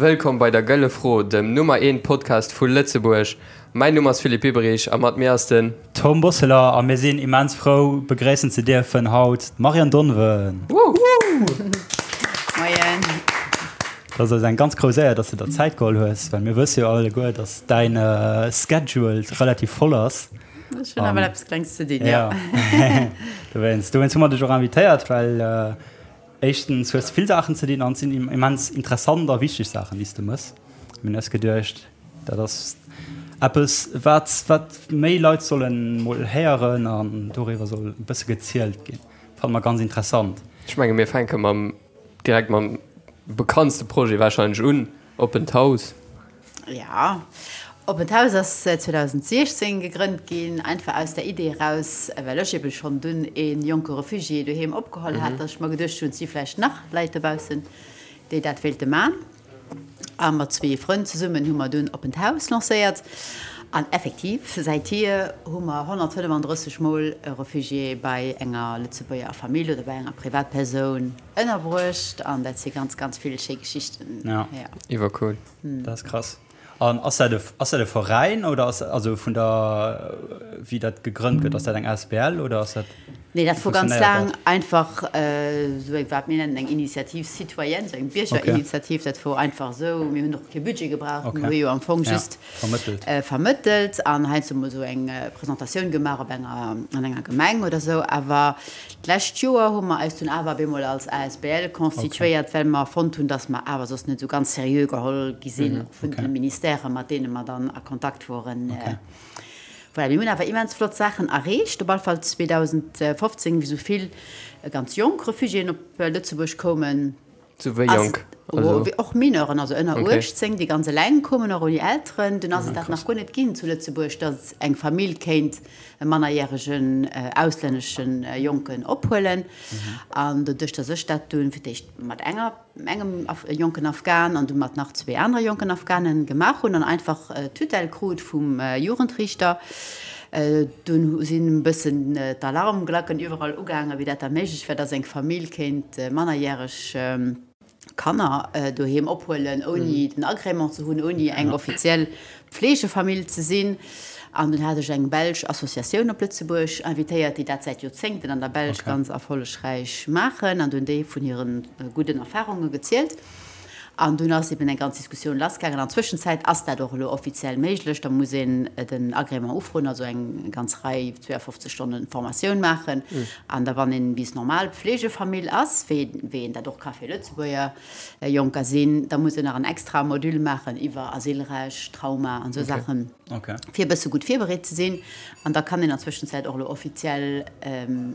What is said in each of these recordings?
Wëllkomm bei der Gëlle Fro, dem Nummer eent Podcast vu Lëtzebuerg. Mäin Numm ass Philippe Biberich a mat mir ass den. Tom Bosseler a mir sinn immens frou begréissen ze dierfen haut d'Marianne Donven. Moien. Dat ass eis eng ganz grouss Éier, dass de der Zäit geholl hues, well mir wësse jo alleguer, dass däin Schedule relativ voll ass. Ech hunn awer eppes Klengs ze dinn, jo. Dowéinst, dowéinst hu mer dech och invitéiert, well éischtens hues de vill Saachen ze dinn an et sinn immens interessant a wichteg Saachen, déi s de mëss. Mir hunn eis geduecht, dat ass eppes, wat, wat méi Leit sollen mol héieren an doriwwer soll e bësse gezielt ginn. Fanne mer ganz interessant. Ech menge mir fänke mam, direkt mam bekanntste Projet warscheinlech un, Oppent Haus. Jo, Oppent Haus ass 2016 gegrënnt ginn, einfach aus der Idee eraus, well ech ebe schonn dunn ee jonke Refugié doheem opgeholl hat, datt ech mer geduecht hunn, et si vläicht nach Leit dobaussen, déi dat wéilte man. A mat zwee Frënn zesummen hu mer dunn Oppent Haus lancéiert. An effektiv, säithier hu mer 135 Mol e Refugié bei enger Lëtzebuerger Famill oder bei enger Privatpersoun ënnerbruecht. An dat si ganz, ganz vill schéi Geschichten. Jo. Iwwercool. Dat ass krass. An ass dat e, ass dat e Veräin oder ass, also vun der, wéi dat gegrënnt gëtt, ass dat eng asbl oder ass dat, Nee, dat wéi wor ganz funktionéiert laang dat? einfach esou eng, wat mir nennen eng Initiative citoyenne, esou eng Okay. Biergerinitiativ. Dat wor einfach esou, mir hunn och kee Budget gebraucht, mir Okay. hu jo am Fong Ja, just vermëttelt. vermëttelt an heiansdo mol esou eng Presentatioun gemaach op enger, an enger Gemeng oder esou. Awer D'lescht Joer hu mer eis dunn awer op eemol als asbl constituéiert, well mer fonnt hunn, dass mer awer soss net esou ganz seriö geholl gi sinn, och vun de Ministèrë mat deene mer dann a Kontakt woren. Voilà, mir hunn awer immens flott Saachen erreecht, op alle Fall 2015, wéi esou vill ganz jonk Refugiéen op Lëtzebuerg koumen. Sou wéi jonk? Also och Mineuren, also ënner 18, déi ganz eleng koumen, och ouni Elteren. Dunn ass et dat nach guer net ginn zu Lëtzebuerg, datt eng Famill kéint e mannerjäregen auslännesche Jonken ophuelen. An doduerch, datt ech dat dunn fir d'éischt mat enger, engem jonken Afghan an du mat nach zwee anere jonken Afghanen gemaach hunn an einfach d'Tutelle krut vum Jugendriichter, Dunn sinn e bëssen d'Alarmglacken iwwerall ugaangen, wéi dat da méiglech wär, dass eng Famill kéint mannerjäreg Kanner doheem ophuelen, ouni den Agrément ze hunn, ouni eng offiziell Pflegefamill ze sinn. An dunn hat ech eng belsch Associatioun op Lëtzebuerg invitéiert, déi dat säit Joerzéngten an der Belsch ganz erfollegräich maachen, an dunn déi vun hire gudden Erfarunge gezielt. An dunn ass eben eng ganz Diskussioun lassgaangen. An Zwëschenzäit ass dat och elo offiziell méiglech. Da muss een den Agrément ufroen, also eng ganz Rei, 52 Stonne Formatioun maachen. An da wann een bis normal Pflegefamill ass, wéi wéi een dat och ka fir Lëtzebuerger Jonker sinn, da muss een nach en extra Module maachen iwwer Asylrecht, Trauma an esou Saachen, fir e bësse gutt virbereet ze sinn. An da kann een an Zwëschenzäit och elo offiziell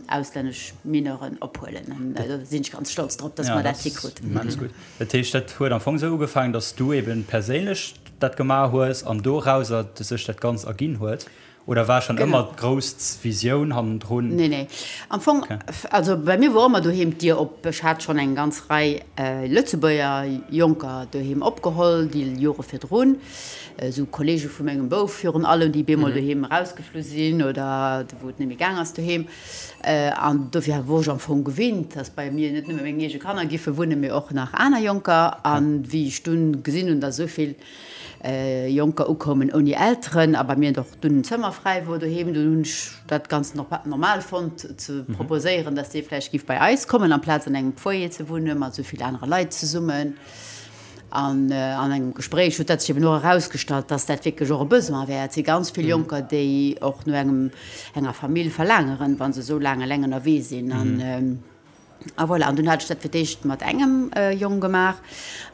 auslännesch Mineuren ophuelen. An do sinn ech ganz stolz drop, dass mer dat hikruten. Immens gutt. Dat heescht, dat huet am Fong esou ugefaangen, dass du eben perséinlech dat gemaach hues an dorauser sech dat Ganzt erginn huet? Oder war schonn ëmmer d'grouss Visioun hannendrun? Nee, nee. Am Fong, also bei mir wor ëmmer doheem d'Dier op. Ech hat schonn eng ganz Rei Lëtzebuerger Jonker doheem opgeholl, déi Jore virdrun. Esou Kollege vu mengem Bouf virun allem, déi bemol doheem erausgeflu sinn oder wou et net méi gaang ass doheem. An dofir wor ech am Fong gewinnt, dass bei mir net nëmme meng eege Kanner giffe wunnen, mee och nach aner Jonker. An wéi ech dunn gesinn hunn, dass esou vill Jonker ukoumen ouni Elteren a bei mir och dunn en Zëmmer fräi wor doheem, dunn hunn ech dat ganz normal fonnt ze proposéieren, dass dee vläicht giff bei eis kommen, amplaz an engem Foyer ze wunne mat esou vill anere Leit zesummen. An an engem Gespréich huet dat sech eben och erausgestallt, dass dat wierklech och e Besoin wär. Et si ganz vill Jonker, déi och no engem, enger Famill verlaangeren, wa se esou laang eleng ënnerwee sinn. An a voilà, an dunn hat ech dat fir d'éischt mat engem Jong gemaach.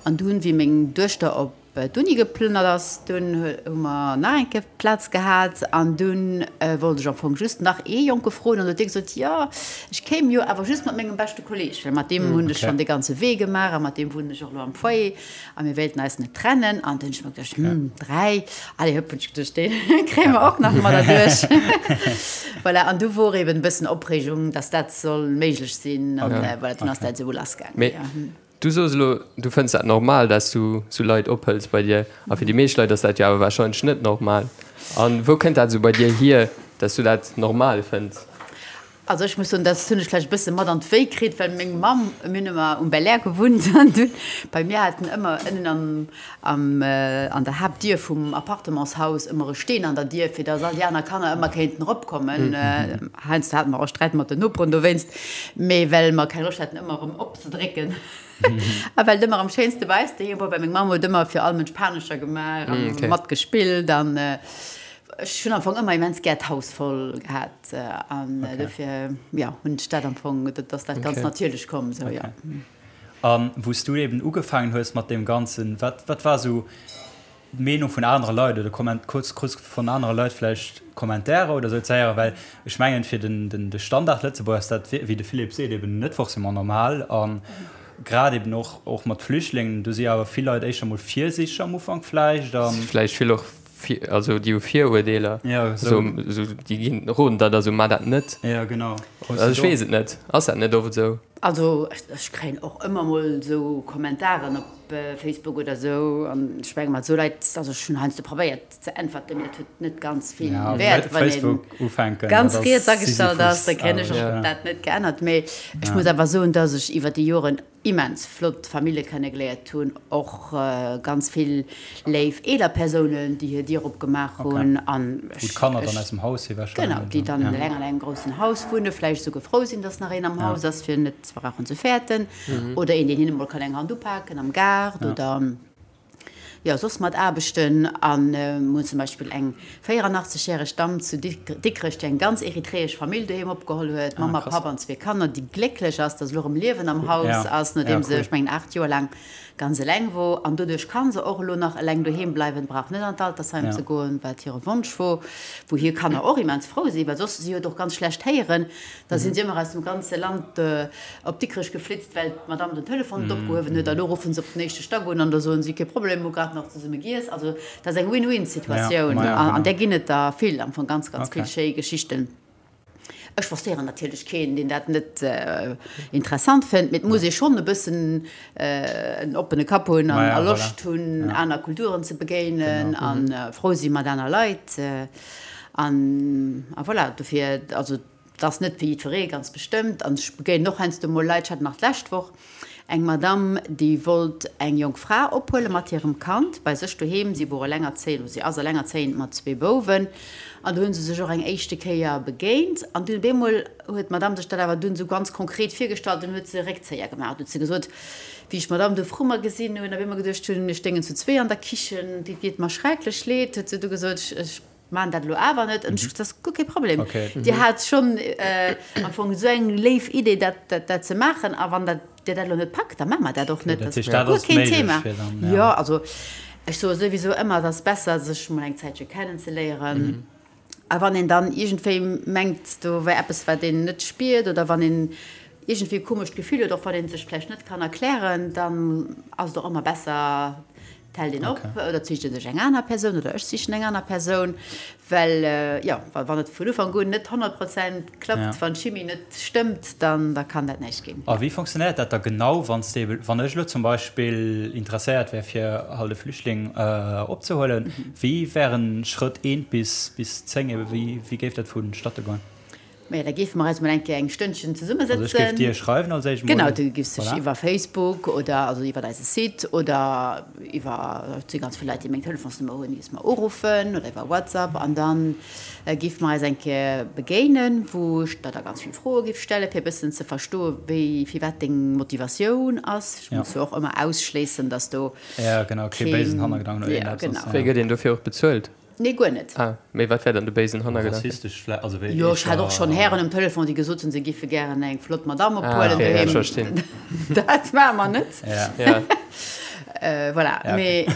An dunn, wéi meng Duechter op d'Uni geplënnert ass, dunn hu mer nach eng Kéier Plaz gehat. An dunn wollt ech am Fong just nach ee Jonke froen. An du huet dee gesot, Jo, ech kéim jo awer just mat mengem beschte Kolleeg, well mat deem hunn ech schonn dee ganze Wee gemaach a mat deem wunnen ech och elo am Foyer a mir wéilten eis net trennen. An dunn hunn ech mer geduecht, Hm, 3, allez hëpp, hunn ech geduecht, dee kréie mer och nach mat erduerch. Voilà, an du wor eben e bëssen Opreegung, dass dat soll méiglech sinn. An voilà, dunn ass dat esou lassgaangen. Du soos elo, du fënns dat normal, dass du sou Leit ophëls bei dir. A fir déi meescht Leit ass dat jo awer warscheinlech net normal. A wou kënnt dat esou bei dir hier, dass du dat normal fënns? Also ech muss soen, dat hunn ech vläicht e bësse mat an d'Wéi kritt, well meng Mamm, mir hunn ëmmer um Belair gewunnt an dunn bei mir haten ëmmer ënnen am, am, an der Haaptdier vum Appartementshaus ëmmer e Steen an der Dier, fir datt all déi aner Kanner ëmmer kéinten eropkommen. Heiansdo hate mer och Sträit mat den Noperen dowéinst, mee well mer keng Loscht haten ëmmer erëm opzedrécken a well et ëmmer am schéinste bei eis doheem wor, well meng Mamm huet ëmmer fir all Mënsch Panescher gemaach a matgespillt an Ech hunn am Fong ëmmer immens gär d'Haus voll gehat an dofir, jo, hunn ech dat am Fong, dat ass dat ganz natierlech komm esou, jo. A wou s du eben ugefaangen hues mat deem Ganzen, wat, wat war esou d'Meenung vun anere Leit oder Komment, krus, krus vun anere Leit vläicht Kommentairer oder esou ze héieren? Well ech mengen, fir den, den, de Standard-Lëtzebuerger ass dat, wéi de Philippe seet, eben net forcément normal a grad eben och, och mat Flüchtlingen, do si awer vill Leit éischter mol virsiichteg am Ufank vläicht a. Si vläicht vill och Also déi hu Viruerdeeler. Ja, esou. Esou, déi ginn, roden der da sou, Mar dat net. Ja, genau. Also ech weess et net. Ass dat net oft esou? Also ech kréien och ëmmer mol esou Kommentaren op Facebook oder esou an ech menge mat esou Leit, also ech hunn heiansdo probéiert ze äntwerten, mee dat huet net ganz vill Wäert, wann ee ganz riets agestallt ass, da kréien ech och dat net geännert. Mee ech muss awer soen, datt ech iwwer déi Joren immens flott Famille kennegeléiert hunn, och ganz vill léif eeler Persounen, déi hir Dier opgemaach hunn an Wou d'Kanner dann aus dem Haus si wahrscheinlech. Genau, déi dann eleng an engem groussen Haus wunnen, vläicht esouguer frou sinn, dass nach een am Haus ass, fir net ze brauchen ze fäerten, oder een, deen hinne mol kann eng Hand upaken am Gaart oder. Jo, soss mat Aarbechten. A mir hunn zum Beispill eng 84 järeg Damm zu Dikrech, déi eng ganz eritreesch Famill doheem opgeholl huet, Mamm a Papp an zwee Kanner, déi glécklech ass, datt elo erëm Liewen am Haus ass, nodeem se, ech mengen, 8 Joer laang ganz eleng wor. An doduerch ka se och elo nach eleng doheem bleiwen, brauch net an d'Altersheim ze goen, wat hire Wonsch wor, wou hir Kanner och immens frou sinn, well soss, si huet och ganz schlecht héieren, Da sinn si ëmmer aus dem ganze Land op Dikrech geflitzt, well d'Madame den Telefon net opgehuewen huet. A lo ruffen se op den éischte Stack un an da soen si, Kee Problem, hu grad nach zesumme giess. Also dat ass eng Win-win-Situatioun an där ginn et der vill, am Fong ganz, ganz vill schéi Geschichten. Ech forcéieren natierlech keen, deen dat net interessant fënnt, mee et muss ee schonn e bëssen en oppene Kapp hunn a Loscht hunn, aner Kulturen ze begéinen a frou si mat aner Leit. An a voilà, dofir, also et ass net fir jiddweree, ganz bestëmmt. An ech begéinen och heiansdo mol Leit, ech hat nach d'lescht Woch eng Madamm, déi wollt eng jonk Fra ophuele mat hirem Kand bei sech doheem. Si wor elengerzéiend, oder si ass elengerzéiend mat zwee Bouwen. An do hu se sech och eng éischte Kéier begéint. An dunn op eemol huet d'Madamm sech dat awer dunn esou ganz konkret virgestallt, dunn huet se e Réckzéier gemaach. Huet se gesot, Wéi ech d'Madamm do vru mer gesinn hunn, op eemol geduecht hunn, mir stéingen zu zwee an der Kichen, et deet mer schrecklech leed, huet se du gesot, ech maachen dat elo awer net. An ech gesot, dat ass guer kee Problem, Dir hat schonn am Fong esou eng léif Idee, dat dat ze maachen, a wann dat Dir dat elo net packt, da maache mer dat och net, dat ass guer keen Thema. Jo, also ech soe souwisou ëmmer, et ass besser, sech mol eng Zäitche kennenzeléieren. A wann een dann iergendwéi mengt, do wär eppes, wat een net spiert, oder wann een iergendwéi e komescht Gefill huet, och wann ee sech vläicht net kann erklären, dann ass et och ëmmer besser, et hält een op oder et sicht ee sech eng aner Persoun oder ech sichen eng aner Persoun, well, jo, wann et vun Ufank un net 100 Prozent klappt, wann d'Chimie net stëmmt, dann da kann dat näischt ginn. A wéi fonctionnéiert dat da genau, wann s de, wann ech elo zum Beispill interesséiert wär, fir halt e Flüchtling opzehuelen, wéi wären Schrëtt eent bis bis 10 ebe, wéi wéi géif dat vonstatte goen? Maja, da géife mer eis mol eng Kéier eng Stënnchen zesummesëtzen. Also ech géif dir schreiwen als éischt mol. Genau, du giffs dech iwwer Facebook oder also iwwer eise Site oder iwwer, et si ganz vill Leit, déi meng Telefonsnummer hunn, giffs mer uruffen oder iwwer WhatsApp an dann géife mer eis eng Kéier begéinen, wou ech der da ganz vill Froe giff stellen, fir e bëssen ze verstoen, wéi, firwat deng Motivatioun ass. Ech muss jo och ëmmer ausschléissen, dass do Ja, genau, kee béisen Hannergedanken oder iergendeppes ass. Wéi gëtt een dofir och bezuelt? Nee, guer net. Ah, mee wat wär dann de béisen Hannergedanken? Rassistesch vläicht, also wéi Jo, ech hat och schonn Hären um Telefon, déi gesot hunn, se giffe gären eng flott Madamm Ah, ophuelen okay, ja, ech doheem. verstinn. Dat maache mer net. Ja. Ja. Voilà, Ja, okay. mee.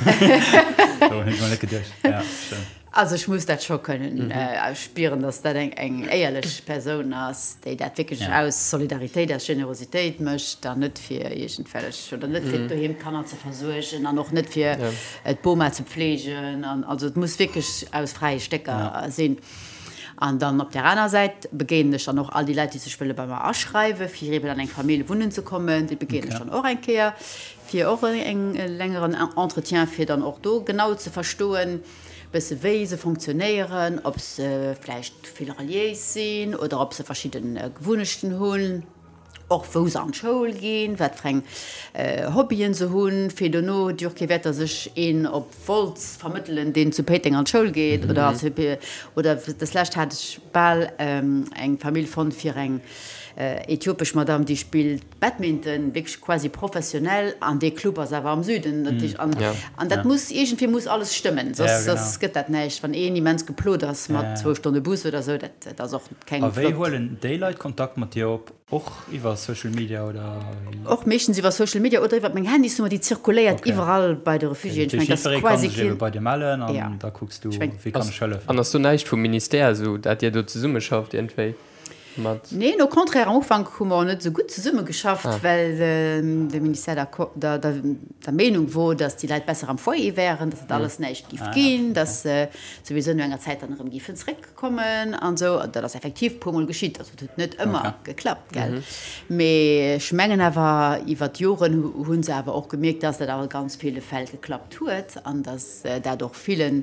Dorun hunn ech mol net geduecht. Ja, stëmmt. Also ech muss dat scho kënnen spieren, dass dat eng eng éierlech Persoun ass, déi dat wierklech aus Solidaritéit, aus Generositéit mécht an net fir iergendwellech, oder net fir doheem d'Kanner ze versuergen an och net fir d'Boma ze pflegen. An also et muss wierklech aus fräie Stécker sinn. An dann op där aner Säit begéinen ech dann och all déi Leit, déi sech wëlle bei mer aschreiwen, fir eeben an eng Famill wunnen ze kommen. Déi begéinen ech dann och eng Kéier, fir och e längeren Entretien, fir dann och do genau ze verstoen, Bësse wéi se fonctionnéieren, ob se vläicht vill reliéis sinn oder ob se verschidde Gewunnechten hunn, och wou se an d'Schoul ginn, wat fir eng Hobbyen se hunn, fir dono huet jo och kee Wäert, datt ech een op Wolz vermëttelen, deen zu Péiteng an d'Schoul geet oder oder deslescht hat ech bal eng Famill fonnt fir eng äthiopesch Madame, déi spillt Badminton, wierklech quasi professionell, an dee Club ass awer am Süden, dat heescht, an, an dat muss, iergendwéi muss alles stëmmen, soss, soss gëtt dat näischt. Wann een immens geplot ass mat zwou Stonne Bus oder esou, dat, dat ass och keng A wéi flott. huelen déi Leit Kontakt mat dir op? Och iwwer Social Media oder wéi? Och meeschtens iwwer Social Media oder iwwer meng Handysnummer, déi zirkuléiert Okay. iwwerall bei de Refugiéen. Ech mengen, dat ass Jiddweree kann quasi sech ebe keen, bei dir mellen an ja, da kucks du, ech meng. wéi kann ech hëllefen. An ass do näischt vum Ministère esou, dat dir do zesummeschafft iergendwéi? Mat. Neen, au contraire, am Ufank hu mer och net esou gutt zesummegeschafft, well de Ministère der, der, der Meenung wor, datt déi Leit besser am Foyer wären, datt dat alles näischt giff ginn, datt se souwisou no enger Zäit dann erëm giffen zréckkommen an esou. An dat ass effektiv e puermol geschitt, also et huet net ëmmer geklappt, gell. Mee ech mengen awer, iwwer d'Joren hu se awer och gemierkt, datt dat a ganz ville Fäll geklappt huet an datt dat och villen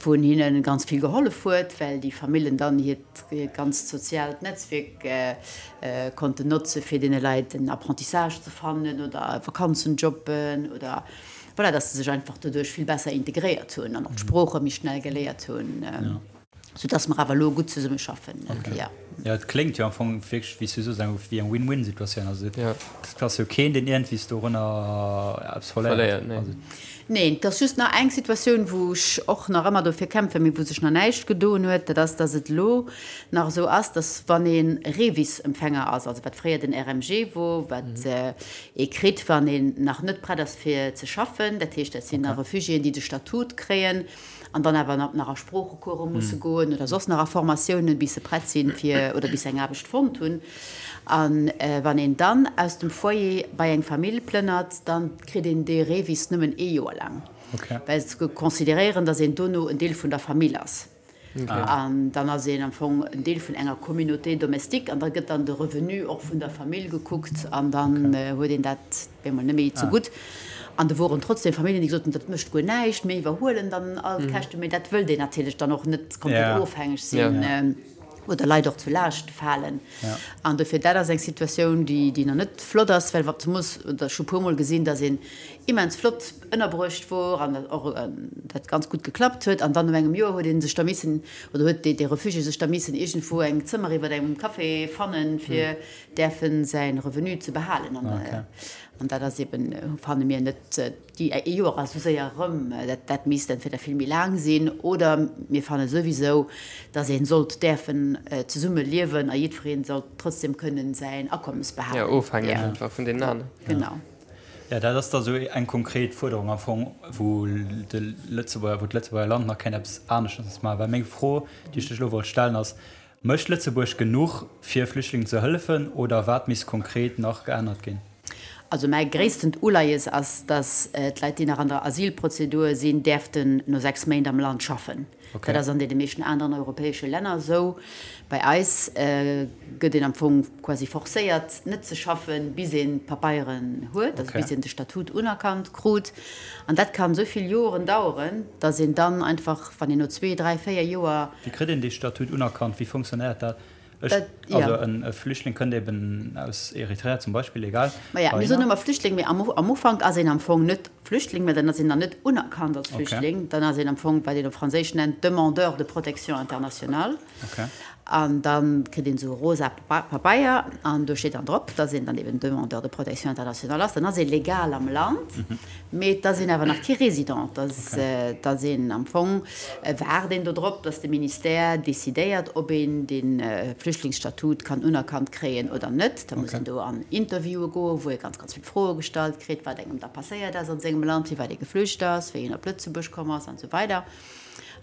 vun hinne ganz vill gehollef huet, well déi Famillen dann hiert ganzt soziaalt Netzwierk konnten notze fir deene Leit en Apprentissage ze fannen oder Vakanzenjobben oder voilà, dass se sech einfach doduerch vill besser integréiert hunn an och d'Sprooche méi schnell geléiert hunn, soudass mer awer elo gutt zesummeschaffen. Jo. Jo, et kléngt jo am Fong wierklech, wéi s du soos, eng wéi eng Win-Win-Situatioun. Also et ass jo keen, deen iergendwéi dorënner eppes verléiert. Neen, et ass just nach eng Situatioun, wou ech och nach ëmmer dofir kämpfen, mee wou sech nach näischt gedoen huet, dat ass, dass et elo nach esou ass, dass wann ee REVIS-Empfänger ass, also wat fréier den RMG wor, wat ee kritt, wann een nach net prett ass fir ze schaffen, dat heescht, dat sinn da Refugiéen, déi de Statut kréien an dann awer nach a Sproochecourse musse goen oder soss nach a Formatiounen, bis se prett sinn fir oder bis se eng Aarbecht fonnt hunn. A wann een dann aus dem Foyer bei eng Famill plënnert, da kritt een dee REVIS nëmmen ee Joer laang, well se consideréieren, datt een dono en Deel vun der Famill ass. An dann ass een am Fong en Deel vun enger Communauté domestique an da gëtt dann de Revenu och vun der Famill gekuckt an dann huet een dat op eemol net méi zegutt. An do woren trotzdem Familljen, déi gesot hunn, dat mécht guer näischt, mir iwwerhuelen dann all d'Käschten. Mee dat wëllt een natierlech dann och net komplett ofhängeg sinn oder Leit och zu Laascht falen. An dofir, dat ass eng Situatioun, déi nach net flott ass, well zemoos, oder ech hu puermol gesinn, datt een immens flott ënnerbruecht wor an och dat ganz gutt geklappt huet an dann no engem Joer huet ee sech da missen, oder huet dee Refugié sech da missen iergendwou eng Zëmmer iwwer engem Café fannen, fir däerfe säi Revenu ze behalen. An dat ass eben, fanne mir, net, déi ee Joer ass esou séier erëm, dat dat misst entweder vill méi laang sinn oder mir fanne souwisou, datt ee sollt däerfen zesumme liewen a jiddweree sollt trotzdem kënnen säin Akommes behalen. Jo, ofhängeg einfach vun deenen aneren. Genau. Jo, dat ass da sou eng konkret Fuerderung am Fong, wou de Lëtzebuerger, wou d'Lëtzebuerger Land nach kéint eppes aneschters maachen. Well meng Fro, déi ech lech elo wollt stellen, ass, Mécht Lëtzebuerg genuch, fir Flüchtlingen ze hëllefen, oder wat misst konkret nach geännert ginn? Also mäi gréisstent Uleies ass, datt d'Leit, déi nach an der Asylprozedur sinn, däerften no 6 Méint am Land schaffen. Dat ass an deene meeschten aneren europäesche Länner esou. Bei eis gëtt een am Fong quasi forcéiert, net ze schaffen, bis een d'Papeieren huet, also bis een de Statut unerkannt krut. An dat kann esou vill Joren daueren, datt een dann einfach, wann een no zwee, dräi, véier Joer. Wéi kritt een dee Statut unerkannt? Wéi fonctionnéiert dat? Ech, also en Flüchtling kënnt eben aus Eritrea zum Beispill, egal. Maja, mir soen ëmmer Flüchtling, mee am am Ufank ass een am Fong net Flüchtling, mä dann ass een nach net unerkannt als Flüchtling. Dann ass een am Fong, wat een op Franséisch nennt, Demandeur de protection internationale. An da kritt een esou e rosa Pabeier an do steet dann drop, dass een dann eben Demandeur de protection internationale ass. Dann ass ee legal am Land, mee et ass een awer nach kee Résident. Et ass een am Fong, waart een do drop, dass de Ministère decidéiert, ob een de Flüchtlingsstatut kann unerkannt kréien oder net. Da muss een do an Interviewe goen, wou ee ganz, ganz vill Froe gestallt kritt, wat engem da passéiert ass an sengem Land, firwat ee geflücht ass, wéi een op Lëtzebuerg komm ass an esou weider.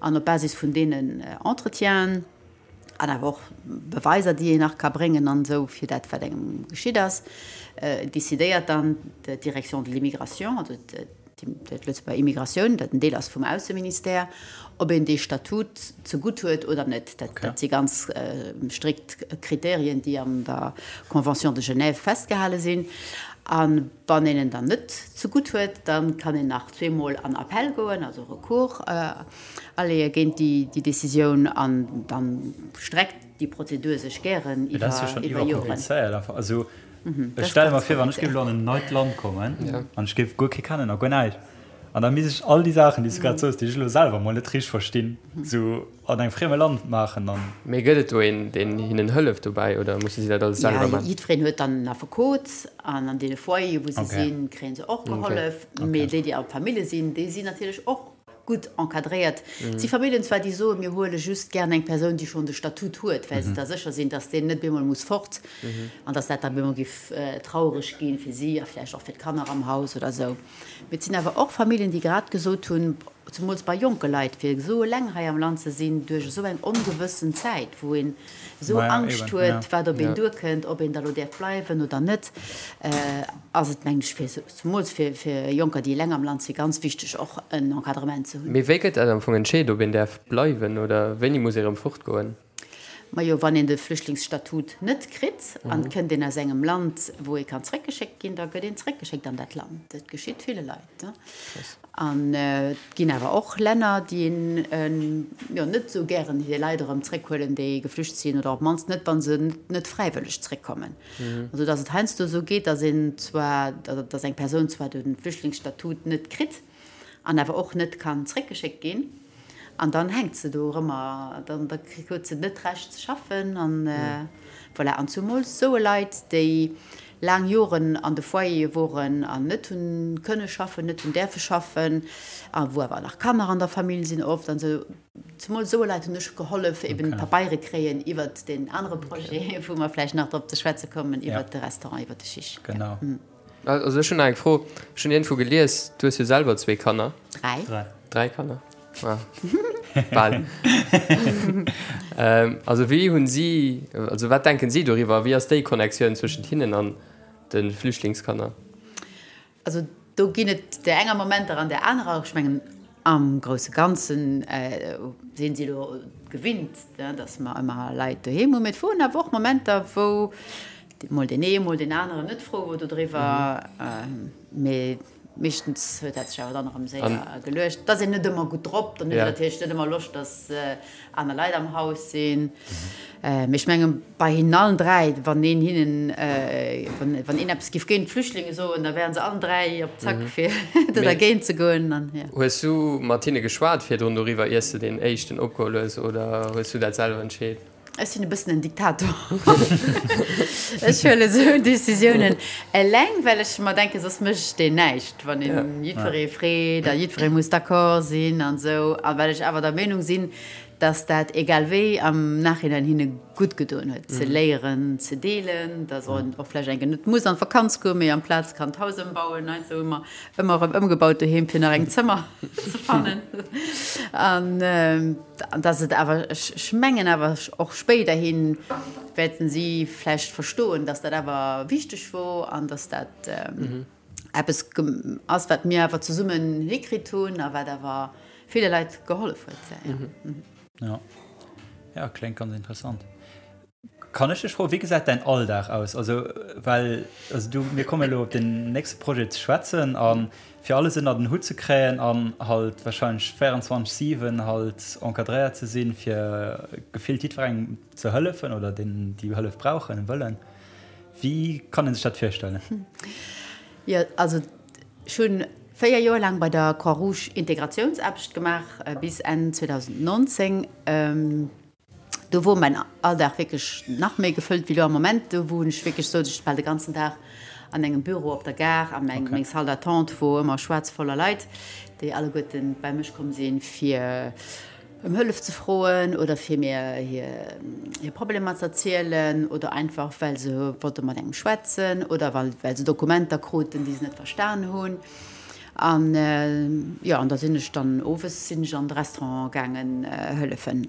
An op Basis vun deenen Entretienen an awer och Beweiser, déi een nach ka bréngen an esou fir dat, wat engem geschitt ass, decidéiert dann d'Direction de l'immigration, also d'Lëtzebuerger Immigratioun, dat en Deel ass vum Ausseministère, ob een dee Statut zegutt huet oder net. Dat si ganz strikt Kriterien, déi an der Convention de Genève festgehale sinn. A wann een en dann net zegutt huet, da kann een nach zweemol an Appell goen, also Recours aleeë géint déi Decisioun. An da streckt déi Prozedur sech gären iwwer Joren. Mee dat ass jo schonn iwwerkomplizéiert einfach. Also ech stelle mer vir, wann ech géif elo an en neit Land kommen an ech géif guer kee kennen a guer näischt, an da misst ech all déi Saachen, déi s du grad soos, déi ech elo selwer mol net richteg verstinn, esou an engem frieme Land maachen an. Mee gëtt et do een, deen hinnen hëlleft dobäi oder musse si dat alles selwer maachen? Jo, jiddwereen huet dann en Affekot an an deene Foyere wou se sinn, kréie se och gehollef. Mee déi, déi a Famillje sinn, déi sinn natierlech och gutt encadréiert. Et si Familljen zwar, déi soen, mir huele just gären eng Persoun, déi schonn de Statut huet, well se da sécher sinn, datt deen net bemol muss fort an datt dat da bemol géif traureg gi fir si a vläicht och fir d'Kanner am Haus oder esou. Mee et sinn awer och Familljen, déi grad gesot hunn, zemools bei jonke Leit, fir esou eleng hei am Land ze sinn duerch esou eng ongewëssen Zäit, wou een esou Angscht huet, wat op een duerkënnt, ob een da lo däerf bleiwen oder net, ass et, mengen ech, fir zemools fir Jonker, déi eleng am Land sinn, ganz wichteg, och en Encadrement ze hunn. Mee wéi gëtt dat am Fong entscheet, ob een däerf bleiwen oder wéini muss ee erëm fortgoen? Majo, wann een de Flüchtlingsstatut net kritt an et kënnt een aus engem Land, wou ee kann zréckgeschéckt ginn, da gëtt een zréckgeschéckt an dat Land. Dat geschitt ville Leit. An et ginn awer och Länner, déi jo net esou gären hir Leit erëm zréckhuelen, déi geflücht sinn, oder op d'mannst net, wa se net fräiwëlleg zréckkommen. Also datt et heiansdo esou geet, datt een zwar, datt eng Persoun zwar de Flüchtlingsstatut net kritt an awer och net kann zréckgeschéckt ginn, An dann hänkt se do erëmmer, dann da huet se net d'Recht ze schaffen an voilà. An zumools soe Leit, déi laang Joren an de Foyere woren an net hunn kënne schaffen, net hunn däerfe schaffen a wou awer nach Kanner an der Famill sinn oft an esou, zumools soe Leit hunn ech gehollef eben Pabeiere kréien iwwert deen anere Projet, wou mer vläicht nach drop ze schwätze kommen, iwwert de Restaurant, iwwert de Chiche. Genau. Also ech hunn nach eng Fro. Ech hunn iergendwou gelies, du hues jo selwer zwee Kanner. Dräi. Dräi Kanner. Ah. Bal. ähm, also wéi hunn si, also wat denken si doriwwer? Wéi ass déi Connectioun zwëschent hinnen an de Flüchtlingskanner? Also do ginn et där enger Momenter an där anerer. Ech mengen am grousse Ganzen sinn si elo gewinnt, datt mer ëmmer Leit doheem hunn. Mee et woren awer och Momenter, wou Mol deen ee, mol deen aneren net frou wor dodriwwer, mee meeschtens huet dat sech awer dann erëm séier geluecht. Et ass een net ëmmer gutt drop, dann huet een natierlech net ëmmer Loscht, datt aner Leit am Haus sinn. Mee ech menge bei hinnen allen 3, wann een hinnen, wann een eppes giff géint d'Flüchtlinge soen, da wären se allen 3 op Zack fir do dergéint ze goen. Hues du mat hinne geschwat virdrun doriwwer, iers de deen éischten opgeholl hues, oder hues du dat selwer entscheet? Ech sinn e bëssen en Diktator. Ech huelen esou Decisiounen eleng, well ech mer denken, soss mécht een näischt, wann een jiddweree freet a jiddweree muss d'accord sinn an esou. A well ech awer der Meenung sinn, dass dat egal wéi am Nachhinein hinne gutt gedoen huet, ze léieren ze deelen, dass een och vläicht eng Kéier net muss an d'Vakanz goen, mee amplaz kann d'Haus ëmbauen. Heiansdo hu mer ëmmer erëm ëmgebaut doheem, fir nach eng Zëmmer ze fannen. An An dass et awer, ech mengen awer och spéiderhi wäerten si vläicht verstoen, dass dat awer wichteg wor an dass dat eppes ass, wat mir awer zesummen hikritt hunn a wat awer ville Leit gehollef huet. Jo, jo, kléngt ganz interessant. Kann ech dech froen, wéi gesäit däin Alldag aus? Also, well, also du, mir kommen elo op den nächste Projet ze schwätzen a fir alles ënner den Hutt ze kréien an halt wahrscheinlech 24, 7 halt encadréiert ze sinn, fir gefillt jiddwerengem ze hëllefen oder deenen, déi Hëllef brauchen, wëllen. Wéi kann ee sech dat virstellen? Jo, also ech hunn 4 Joer laang bei der Croix-Rouge Integratiounsaarbecht gemaach bis Enn 2019. Do wor mäin Alldag wierklech nach méi gefëllt wéi lo am Moment. Do wou ech wierklech souz ech bal de ganzen Dag an engem Büro op der Gare a meng meng Salle d'attente wor ëmmer schwaarz voller Leit, déi alleguerten bei mech komm sinn, fir ëm Hëllef ze froen oder fir mir hir hir Problemer ze erzielen oder einfach well se wollte mat engem schwätzen oder well well se Dokumenter kruten, déi se net verstan hunn. An jo, an da sinn ech dann owes sinn ech an de Restaurant gaangen hëllefen.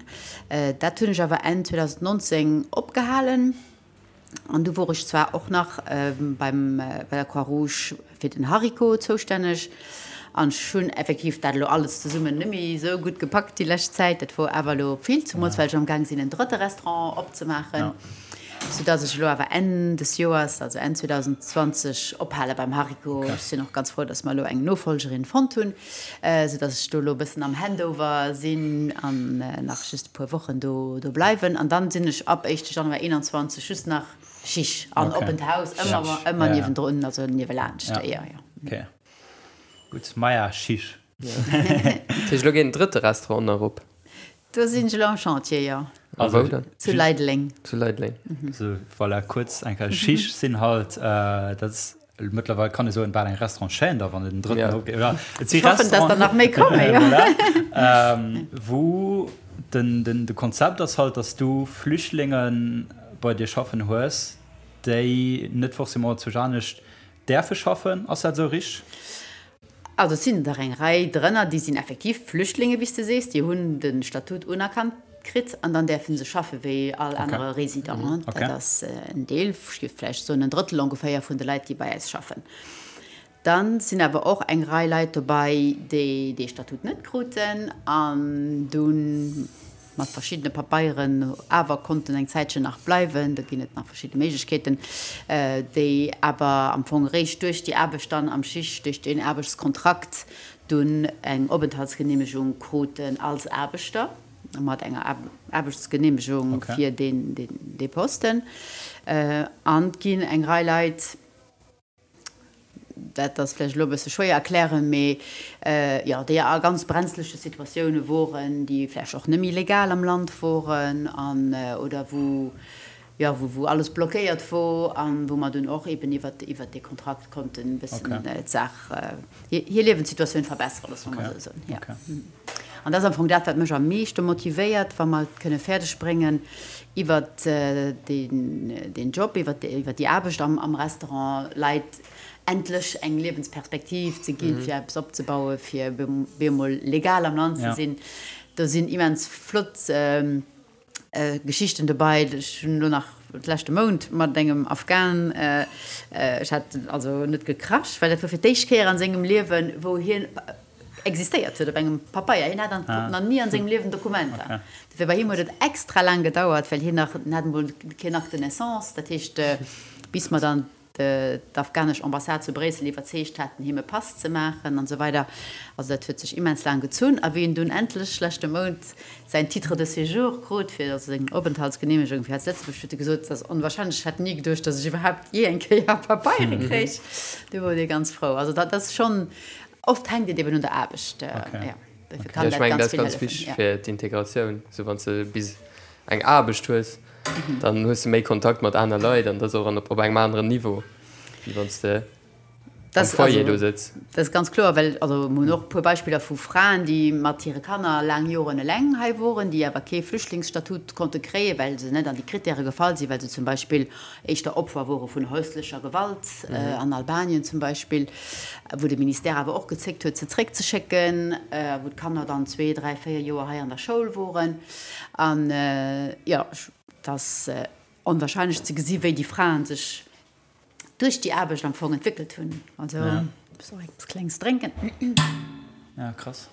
Dat hunn ech awer Enn 2019 opgehalen. An du wor ech zwar och nach beim, bei der Croix-Rouge fir den Hariko zoustänneg. An ech hunn effektiv dat elo alles zesummen net méi esou gutt gepackt déi lescht Zäit. Dat wor awer elo vill, zemools well ech amgaang sinn en drëtte Restaurant opzemaachen. Soudass ech elo awer Enn des Joers, also Enn 2020, ophale beim Hariko. Ech sinn och ganz frou, dass mer elo eng Nofollgerin fonnt hunn, soudass ech do elo e bëssen am Handover sinn an nach just e puer Wochen do bleiwen. An dann sinn ech ab éischte Januar 21 just nach Chiche an Oppent Haus, ëmmer, ëmmer niewendrun, also niewelaanscht, jo, jo. Gutt, maja, Chiche. Dat heescht, elo geet en drëtte Restaurant nach op? Do sinn ech elo am Chantier, jo. A wou dann? Zu Leideleng. Zu Leideleng. So, voilà, kuerz eng Kéier. Chiche sinn halt, dat ass mëttlerweil, kann ee soen, bal eng Restaurant-Chaîne da, wann et en drëtten opgeet, oder? Et si Ech hoffen, dass der nach méi kommen, jo. Voilà. Wou den, den, de Konzept ass halt, dass du Flüchtlinge bei dir schaffen hues, déi net forcément zu anescht däerfe schaffen. Ass dat esou richteg? Also et sinn der eng Rei drënner, déi sinn effektiv Flüchtlinge wéi s de sees, déi hunn de Statut unerkannt kritt an dann däerfe se schaffe wéi all anere Resident. Dat ass en Deel, ech géif vläicht soen en Drëttel ongeféier vun de Leit, déi bei eis schaffen. Da sinn awer och eng Rei Leit dobei, déi dee Statut net kruten an dunn mat verschiddene Papeieren awer konnten eng Zäitchen nach bleiwen. Do ginn et nach verschidde Méiglechkeeten, déi awer am Fong eréischt duerch déi Aarbecht dann am Schicht, duerch deen Aarbechtskontrakt dunn eng Openthaltsgeneemegung kruten als Aarbechter, mat enger Aarbechtsgeneemegung fir dee Posten. An et ginn eng Rei Leit, Dat ass vläicht elo e bësse schwéier erklären, mee jo, déi a ganz brenzleche Situatioune woren, déi vläicht och net méi legal am Land woren an oder wou, jo, wou wou alles blockéiert wor an wou mer dunn och eben iwwert iwwert dee Kontrakt konnten e bëssen d'Saach, hir Liewenssituatioun verbesseren, loosse mer mol esou soen, jo. An dat ass am Fong dat, wat mech am meeschte motivéiert, wa mer et kënne fäerdeg bréngen, iwwert deen Job, iwwert déi Aarbecht am Restaurant Leit endlech eng Liewensperspektiv ze ginn, fir eppes opzebauen, fir bemol legal am Land ze sinn. Do sinn immens flott Geschichten dobei. Ech hunn elo nach leschte Mount mat engem Afghan, ech hat also net gekrasch, well dat wor fir d'éischt Kéier an sengem Liewen, wou hien existéiert huet op engem Papeier. Hien hat nach ni an sengem Liewen Dokumenter. Dofir bei him huet et extra laang gedauert, well hien nach, en hat emol keen Acte de naissance, dat heescht bis mer dann d'afghanesch Ambassade zu Bréissel iwwerzeegt haten, him e Pass ze maachen an esou weider. Also dat huet sech immens laang gezunn. A wéi en dunn endlech leschte Mount säin Titre de séjour krut, fir also seng Openthaltsgeneemegung fir hei zu Lëtzebuerg, huet e gesot, Et ass onwahrscheinlech, ech hätt ni geduecht, datt ech iwwerhaapt jee eng Kéier Papeiere kréich. Du wor dee ganz frou. Also dat ass schonn, oft hänkt et eben un der Aarbecht. Jo, dofir kann dat ganz vill hëllefen. Ech mengen, dat ass ganz wichteg fir d'Integratioun, esou wann s de bis eng Aarbecht hues. Dann hues de méi Kontakt mat aner Leit an dat ass och op engem aneren Niveau, wéi wann s de am Foyer do sëtz. Dat ass ganz kloer, well also mir hunn och e puer Beispiller vu Fraen, déi mat hire Kanner laang Joren eleng hei woren, déi awer kee Flüchtlingsstatut konnte kréien, well se net an déi Krittäre gefall sinn, well se zum Beispill éischter Opfer wore vun häuslecher Gewalt an Albanien zum Beispill, wou de Ministère awer och gezéckt huet, se zréckzeschécken, wou d'Kanner dann zwee, dräi, véier Joer hei an der Schoul woren. An jo, et ass onwahrscheinlech ze gesi wéi déi Fraen sech duerch déi Aarbecht am Fong entwéckelt hunn. Also ech muss och eppes Klengs drénken. Ja, krass.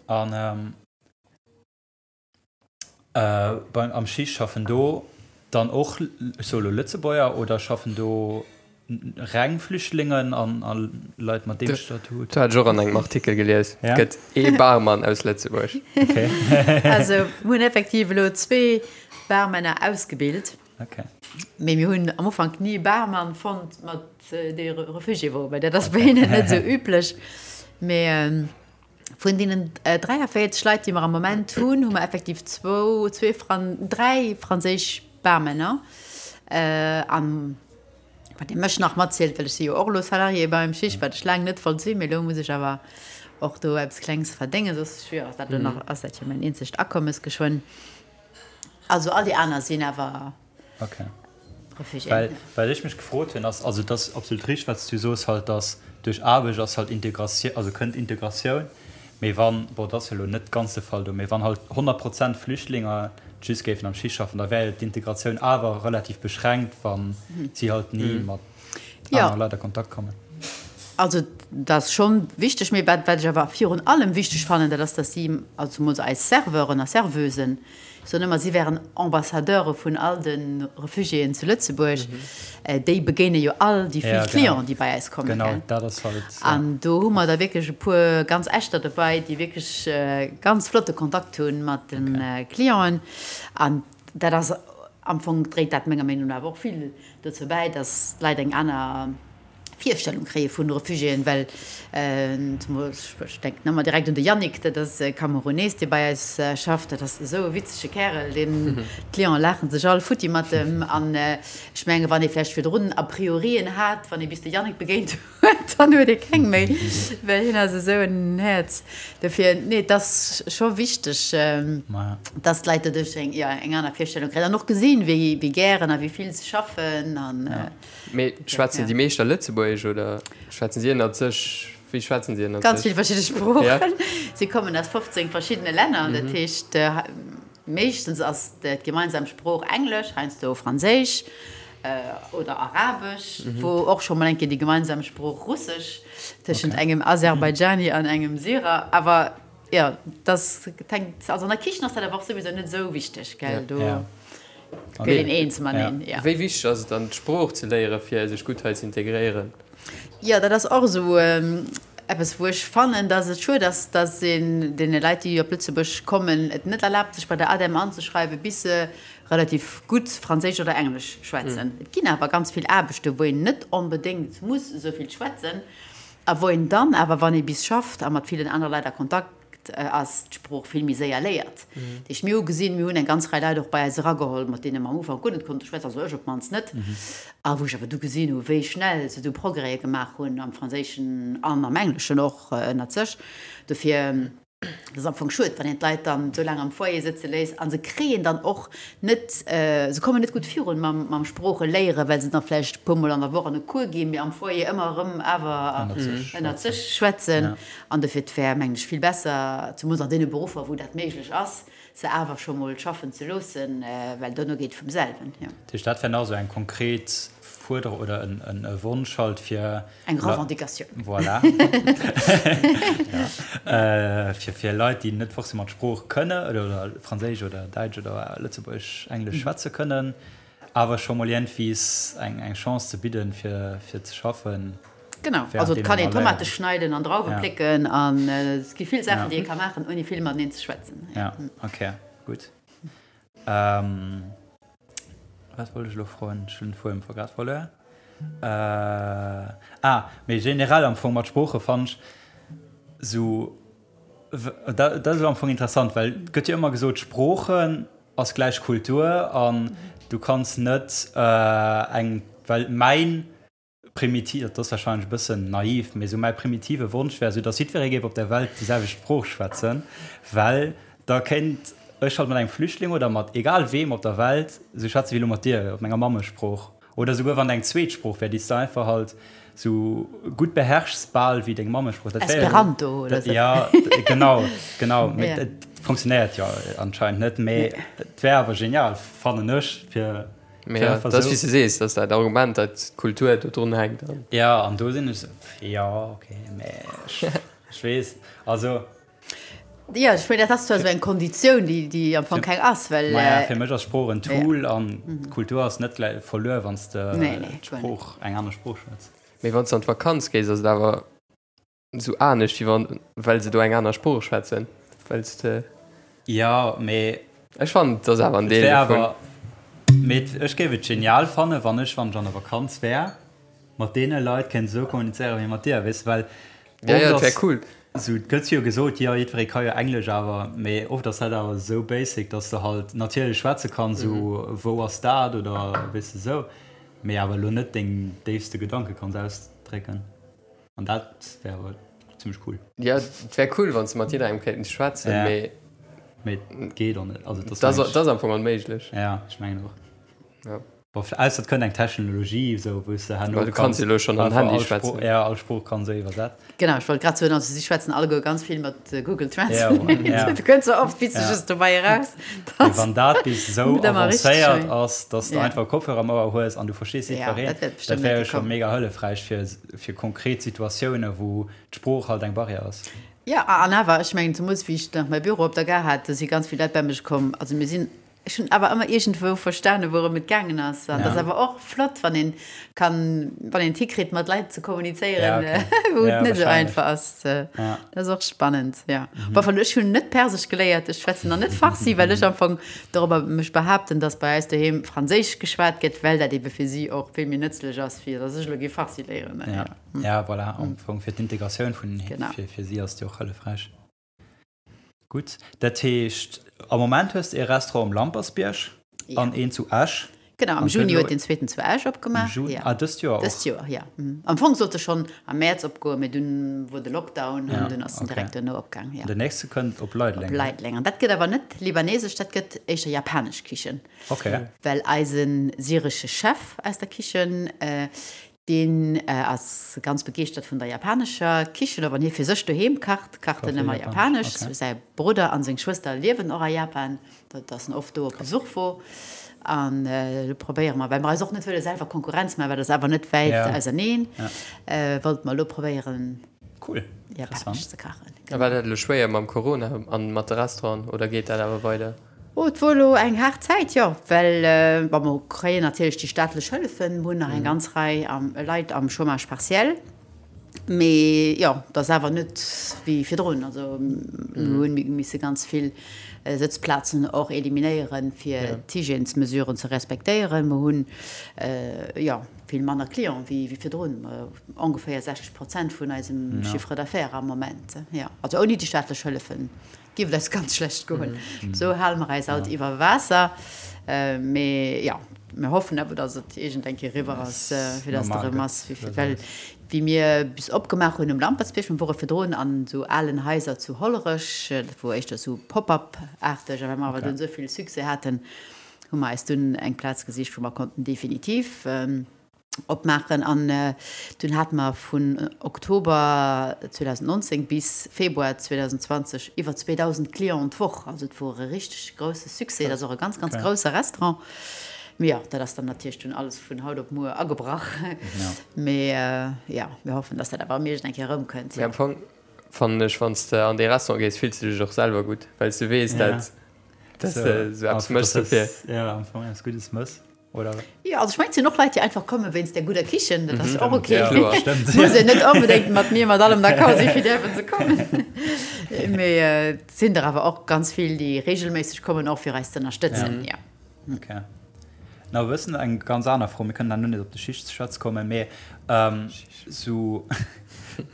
An beim am Schicht schaffen do dann och, ech soe lo Lëtzebuerger, oder schaffen do Reng Flüchtlingen an a Leit mat deem Statut? Dat hat ech och an engem Artikel gelies. Et gëtt ee Barmann aus Lëtzebuerg. Okay. Also mir hunn effektiv elo zwee Barmänner ausgebilt. Okay. Mee mir hunn am Ufank ni e Barmann fonnt, mat dee Refugié wor, well dat ass bei hinnen net esou üblech. Mee vun deenen 43 Leit, déi mer am Moment hunn, hu mer effektiv zwou, zwee Fran-, dräi franséisch Barmänner an Wat dee mech nach matzielt, well ech si jo och elo Salarié beim Schicht, wat ech laang net wollt sinn, mee elo muss ech awer och do eppes Klengs verdéngen, soss jo ass dat elo nach, ass dat jo mäin eenzegt Akommes geschwënn. Also all déi aner sinn awer Okay. Réfugiéen. Well wat ech mech gefrot hunn ass, also et ass absolut richteg wat s du soos halt, datt duerch Aarbecht ass halt Integratioun, also kënnt Integratioun, Mee wann, bon, dat ass jo elo net ganz de Fall do, mee wann halt 100 Prozent Flüchtlinger just géifen am Schicht schaffen, da wär jo d'Integratioun awer relativ beschränkt, wa si halt ni mat anere Leit a Kontakt kommen. Also dat ass schonn wichteg, mee wat wat ech awer virun allem wichteg fannen, dat ass, datt si, also zemools eis Serveuren a Serveusen, ech soen ëmmer, si wären Ambassadeure vun all de Refugiéen zu Lëtzebuerg, déi begéine jo all déi vill Clienten, déi bei eis kommen, gell. An do hu mer da wierklech e puer ganz echter dobäi, déi wierklech ganz flotte Kontakt hu mat de Clienten. An dat ass am Fong, dréit dat menger Meenung no awer och vill dozou bäi, datt d'Leit eng aner Virstellung kréie vun Refugiéen, well ech denken ëmmer direkt un de Yannick, dat ass e Kamerunees, dee bei eis schafft, dat ass esou e witzege Kärel, deen, d'Clienten laache sech all futti mat em. An ech menge wann ee vläicht virdrun A priorien hat, wann ee bis de Yannick begéint huet, dann huet ee keng méi, well hien ass esou en Häerz. Dofir, nee, et ass scho wichteg, dass d'Leit doduerch eng, jo, eng aner Virstellung kréien an och gesinn, wéi gären a wéi vill se schaffen an. Mee schwätzen déi meescht da Lëtzebuergesch oder schwätzen si ënnert sech? Wéi schwätzen si ënnert sech? Ganz vill verschidde Sproochen. Si kommen aus 15 verschiddene Länner. Dat heescht, meeschtens ass d'gemeinsam Sprooch Englesch, heiansdo Franséisch oder Arabesch, wou och scho mol eng Kéier déi gemeinsam Sprooch Russesch tëschent engem Aserbaidschani an engem Syrer. Awer jo, dat hänkt, also an der Kichen ass dat awer och souwisou net esou wichteg, gell? Do. Gëtt een eens mateneen, jo. Wéi wichteg ass et dann, d'Sprooch ze léieren, fir sech gutt hei ze integréieren? Jo, dat ass och esou eppes, wou ech fannen, dass et schued ass, dass een deene Leit, déi op Lëtzebuerg kommen, et net erlaabt, sech bei der ADEM anzeschreiwen, bis se relativ gutt Franséisch oder Englesch schwätzen. Et ginn awer ganz vill Aarbechten, wou een net onbedéngt muss esou vill schwätzen a wou een dann awer, wann ee bis schafft a mat villen anere Leit a Kontakt ass d'Sprooch vill méi séier léiert. Dat heescht, mir hu gesinn, mir hunn eng ganz Rei Leit och bei eis erageholl, mat deene mer am Ufank guer net konnte schwätzen, also ech op d'mannst net, a wou ech awer du gesinn hu wéi schnell se du Progrèse gemaach hunn am Franséischen an am Engleschen och ënnert sech. Dofir, et ass am Fong schued, wann een d'Leit dann esou laang am Foyer sëtze léisst a se kréien dann och net, se kommen net gutt virun mam Sproocheléieren, well se dann vläicht e puermol an der Woch an e Cours ginn, mee am Foyer ëmmer erëm awer ënnert sech schwätzen. An dofir, et wär, mengen ech, vill besser, zemools an deene Beruffer, wou dat méiglech ass, se awer scho mol schaffen ze loossen, well dono geet et vum selwen, jo. Dat heescht, dat wär nach esou eng konkret Fuerderung oder e Wonsch halt fir. Eng Revendicatioun. Voilà. Ja. Fir, fir Leit, déi net forcément d'Sprooch kënne oder Franséisch oder Däitsch oder Lëtzebuergesch, Englesch schwätze kënnen, awer scho mol iergendwies eng, eng Chance ze bidden, fir, fir ze schaffen. Genau, also et kann een Tomate schneiden an Drauwe plécken an et gi vill Saachen, déi ee ka maachen, ouni vill mateneen ze schwätzen. Ja, okay, gutt. Wat wollt ech elo froen? Ech hunn den Fuedem grad verluer. Ah, mee generell am Fong mat Sprooche fannen ech sou, dat ass am Fong interessant, well et gëtt jo ëmmer gesot, Sproochen ass gläich Kultur an du kanns net eng, well mäin Primitiv, dat ass warscheinlech e bëssen naiv, mee esou mäi primitive Wonsch wär esou, datt jiddweree géif op der Welt déi selwecht Sprooch schwätzen, well da kéint ech halt mat engem Flüchtling oder mat egal weem op der Welt esou schwätzen wéi elo mat dir op menger Mammesprooch. Oder esouguer wann et eng zweet Sprooch wär, déi s de einfach halt esou gutt beherrschs bal wéi deng Mammesprooch. Dat wär jo. Esperanto oder esou. Ja, genau, genau. Mee et funktionéiert jo anscheinend net, mee et wär awer genial, fannen ech, fir. Mee ja, dat ass wéi s de sees, dat ass dat Argument, dat d'Kultur do drun hänkt. Ja, an do sinn ech esou, jo, okay, mee ech weess, also. Jo, ech mengen, dat ass zwar esou eng Konditioun, déi, déi am Fong keng ass, well. Maja, fir mech ass Sprooch en Tool an d'Kultur ass net gläich verluer, wann s de d'Sprooch, eng aner Sprooch schwätz. Mee wann s de an d'Vakanz gees, ass et awer. Sou anescht wéi wann well se do eng aner Sprooch schwätzen well s de. Jo mee. Ech fannen et ass awer en Deel dovun. Mee ech géif et genial fannen wann ech wann ech an der Vakanz wär mat deene Leit kéint esou kommunizéieren wéi mat dir weess de well Ja ja et wär cool. Sou et gëtt jo gesot jo jiddweree ka jo Englesch awer mee oft ass dat awer esou basic dass de halt natierlech schwätze kanns sou wou ass dat oder weess de sou mee awer elo net deng déifste Gedanke kanns ausdrécken. An dat wär awer zimmlech cool. Jo, et wär cool, wann s de mat jidderengem kéints schwätzen, mee. Mee et geet och net. Also, dat ass am Fong onméiglech. Ja, ech mengen och. Ja. Bon, ausser et kënnt eng Technologie, esou, wou s de herno Well du kanns jo elo schonn am Handy einfach all Sprooch, schwätzen. ja, all Sprooch kann esou iwwersat. Genau, ech wollt grad soen, also si schwätzen alleguer ganz vill mat Google Ja, Translate. ja. Du kënns sou oft Witzeges dobäi eraus, Mee dass wann dat bis esou net ëmmer richteg avancéiert wär. ass, dass de Ja. einfach Kopfhörer am Ouer hues an du verstees Ja, jiddwereen, dat wäert dat bestëmmt wär net jo scho kommen. mega hëllefräich fir, fir konkret Situatiounen, wou d'Sprooch halt eng Barrière ass. Ja, an awer, ech mengen, zemools wéi ech nach mäi Büro op der Gare hat, do si ganz vill Leit bei mech komm. Also mir sinn Ech hunn awer ëmmer iergendwou verstanen, wourëm et gaangen ass. An dat ass awer och flott, wann een kann, wann een et hikritt, mat Leit ze kommunizéieren, wou et net esou einfach ass. Dat ass och spannend, jo. Bon, enfin, ech hunn net Persesch geléiert, ech schwätzen nach net Farsi, well ech am Fong dorobber mech behaapten, dass bei eis doheem Franséisch geschwat gëtt, well dat ebe fir si och vill méi nëtzlech ass, wéi dass ech elo géif Farsi léieren. Ja, voilà, am Fong fir d'Integratioun vun, fir si ass et jo och hëllefräich. Gutt, dat heescht am Moment hues de ee Restaurant um Lampersbierg an een zu Esch. Genau, am Juni huet deen zweeten zu Esch opgemaach. Am Juni, ah dëst Joer och? Dëst Joer, jo. Am Fong sollt e schonn am Mäerz opgoen, mee dunn wor de Lockdown an dunn ass en direkt duerno opgaang, jo. An den nächste kënnt op Leideleng? Op Leideleng. An dat gëtt awer net libanesesch, dat gëtt éischter japanesch Kichen. Ok. Well eise syresche Chef aus der Kichen, Deen ass ganz begeeschtert vun der japanescher Kichen. A wann hie fir sech doheem kacht, kacht en ëmmer japanesch. Säi Brudder an seng Schwëster liewen och a Japan, dat ass en oft do op Besuch wor. An elo probéiere mer, well mer eis och net wëlle selwer Konkurrenz maachen, well dat ass awer net wäit auserneen, wollte mer elo probéieren, japanesch ze kachen. A war dat elo schwéier mam Corona an mat de Restauranten oder geet dat awer weider? Oh, et wor elo eng haart Zäit, jo, well, bon, mer kréien natierlech déi staatlech Hëllefen, mer hunn nach eng ganz Rei Leit am Chômage partiel, mee jo, et ass awer net wéi virdrun. Also mir hunn misse ganz vill Sëtzplazen och eliminéieren, fir d'Hygiènesmesuren ze respektéieren. Mer hunn, jo, vill manner Clienten wéi virdrun, ongeféier 60 Prozent vun eisem Chiffre d'affaires am Moment, jo, also ouni déi staatlech Hëllefen. Giff et eis ganz schlecht goen. Sou hale mer eis alt iwwer Waasser. Mee jo, mir hoffen awer, datt et iergend eng Kéier eriwwer ass, fir datt et erëm ass wéi vir. Well wéi mir bis opgemaach hunn um Lampertsbierg, mir wore virdrun an esou alen Haiser zu Hollerech, dat wor éischter esou Pop-up-aarteg, a well mer awer dunn esou vill Succès haten, hu mer eis dunn eng Plaz gesicht, wou mer konnten definitiv opmaachen an dunn hate mer vun Oktober 2019 bis Februar 2020 iwwer 2.000 Clienten d'Woch. Also et wor e richteg grousse Succès. Et ass och e ganz, ganz grousse Restaurant. Mee jo, dat ass dann natierlech dunn alles vun haut op muer agebrach. Mee jo, mir hoffen, datt dat awer erëm iergend eng Kéier erëmkënnt. Mee am Fong fannen ech, wann s de an dee Restaurant gees, fills de dech och selwer gutt, well s de weess, dat s de esou eppes méchs dofir. Jo, am Fong eppes Guddes méchs. Oder? Jo, also ech mengen, et sinn och Leit, déi einfach komme wéinst der gudder Kichen. Dat ass jo och ok. Muss een net onbedéngt mat mir mat allem d'accord sinn, fir däerfen ze kommen. Mee et sinn der awer och ganz vill, déi reegelméisseg kommen, och fir eis ze ënnerstëtzen. Jo. Ok. Na, e bëssen eng ganz aner Fro, mir kënnen herno nees op de Schicht ze schwätze kommen, mee sou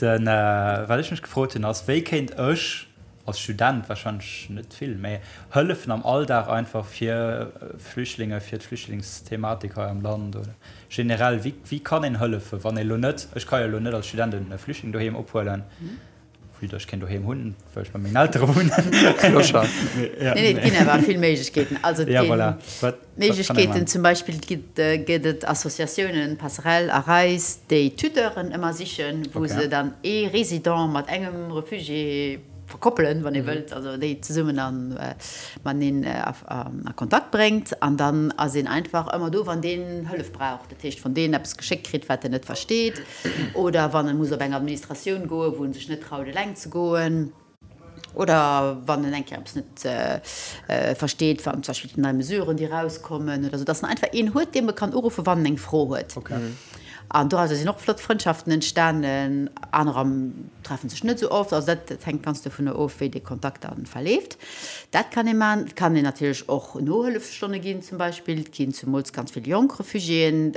den, wat ech mech gefrot hunn, ass, wéi kéint ech als Student wahrscheinlech net vill, mä hëllefen am Alldag einfach fir Flüchtlinge, fir d'Flüchtlingsthematik hei am Land oder generell, wéi, wéi kann een hëllefen, wann ee lo net, ech ka jo lo net als Student e Flüchtling doheem ophuelen, vue datt ech keen doheem hunn, well ech bei mengen Eltere wunnen. Clochard. Nee, nee, et ginn awer vill Méiglechkeeten. Also et Ja, ginn voilà. Wat, wat kann ee Méiglechkeeten, maachen? zum Beispill gëtt, gëtt et Associatiounen, Passerelle a Reis, déi Tuteuren ëmmer sichen, wou Okay. se dann ee Résident mat engem Refugié verkoppelen, wann ee wëllt, also déi zesummen a mateneen a Kontakt bréngt. An dann ass een einfach ëmmer do, wann deen Hëllef brauch. Dat heescht, wann deen eppes geschéckt kritt, wat en net versteet, oder wann e muss op eng Administratioun goen, wou en sech net traut, eleng ze goen. Oder wann en eng Kéier eppes net versteet, wann zum Beispill nei Mesuren, déi erauskommen oder esou, dass en einfach een huet, deem e kann uruffen, wann en eng Fro huet. An dorauser sinn och flott Frëndschaften entstanen. Anerer treffe sech net esou oft. Also dat hänkt ganz dovunner of, wéi dee Kontakt da verleeft. Dat kann ee maachen. Et kann een natierlech och Nohëllefsstonne ginn zum Beispill. Et ginn zemools ganz vill jonk Refugiéen,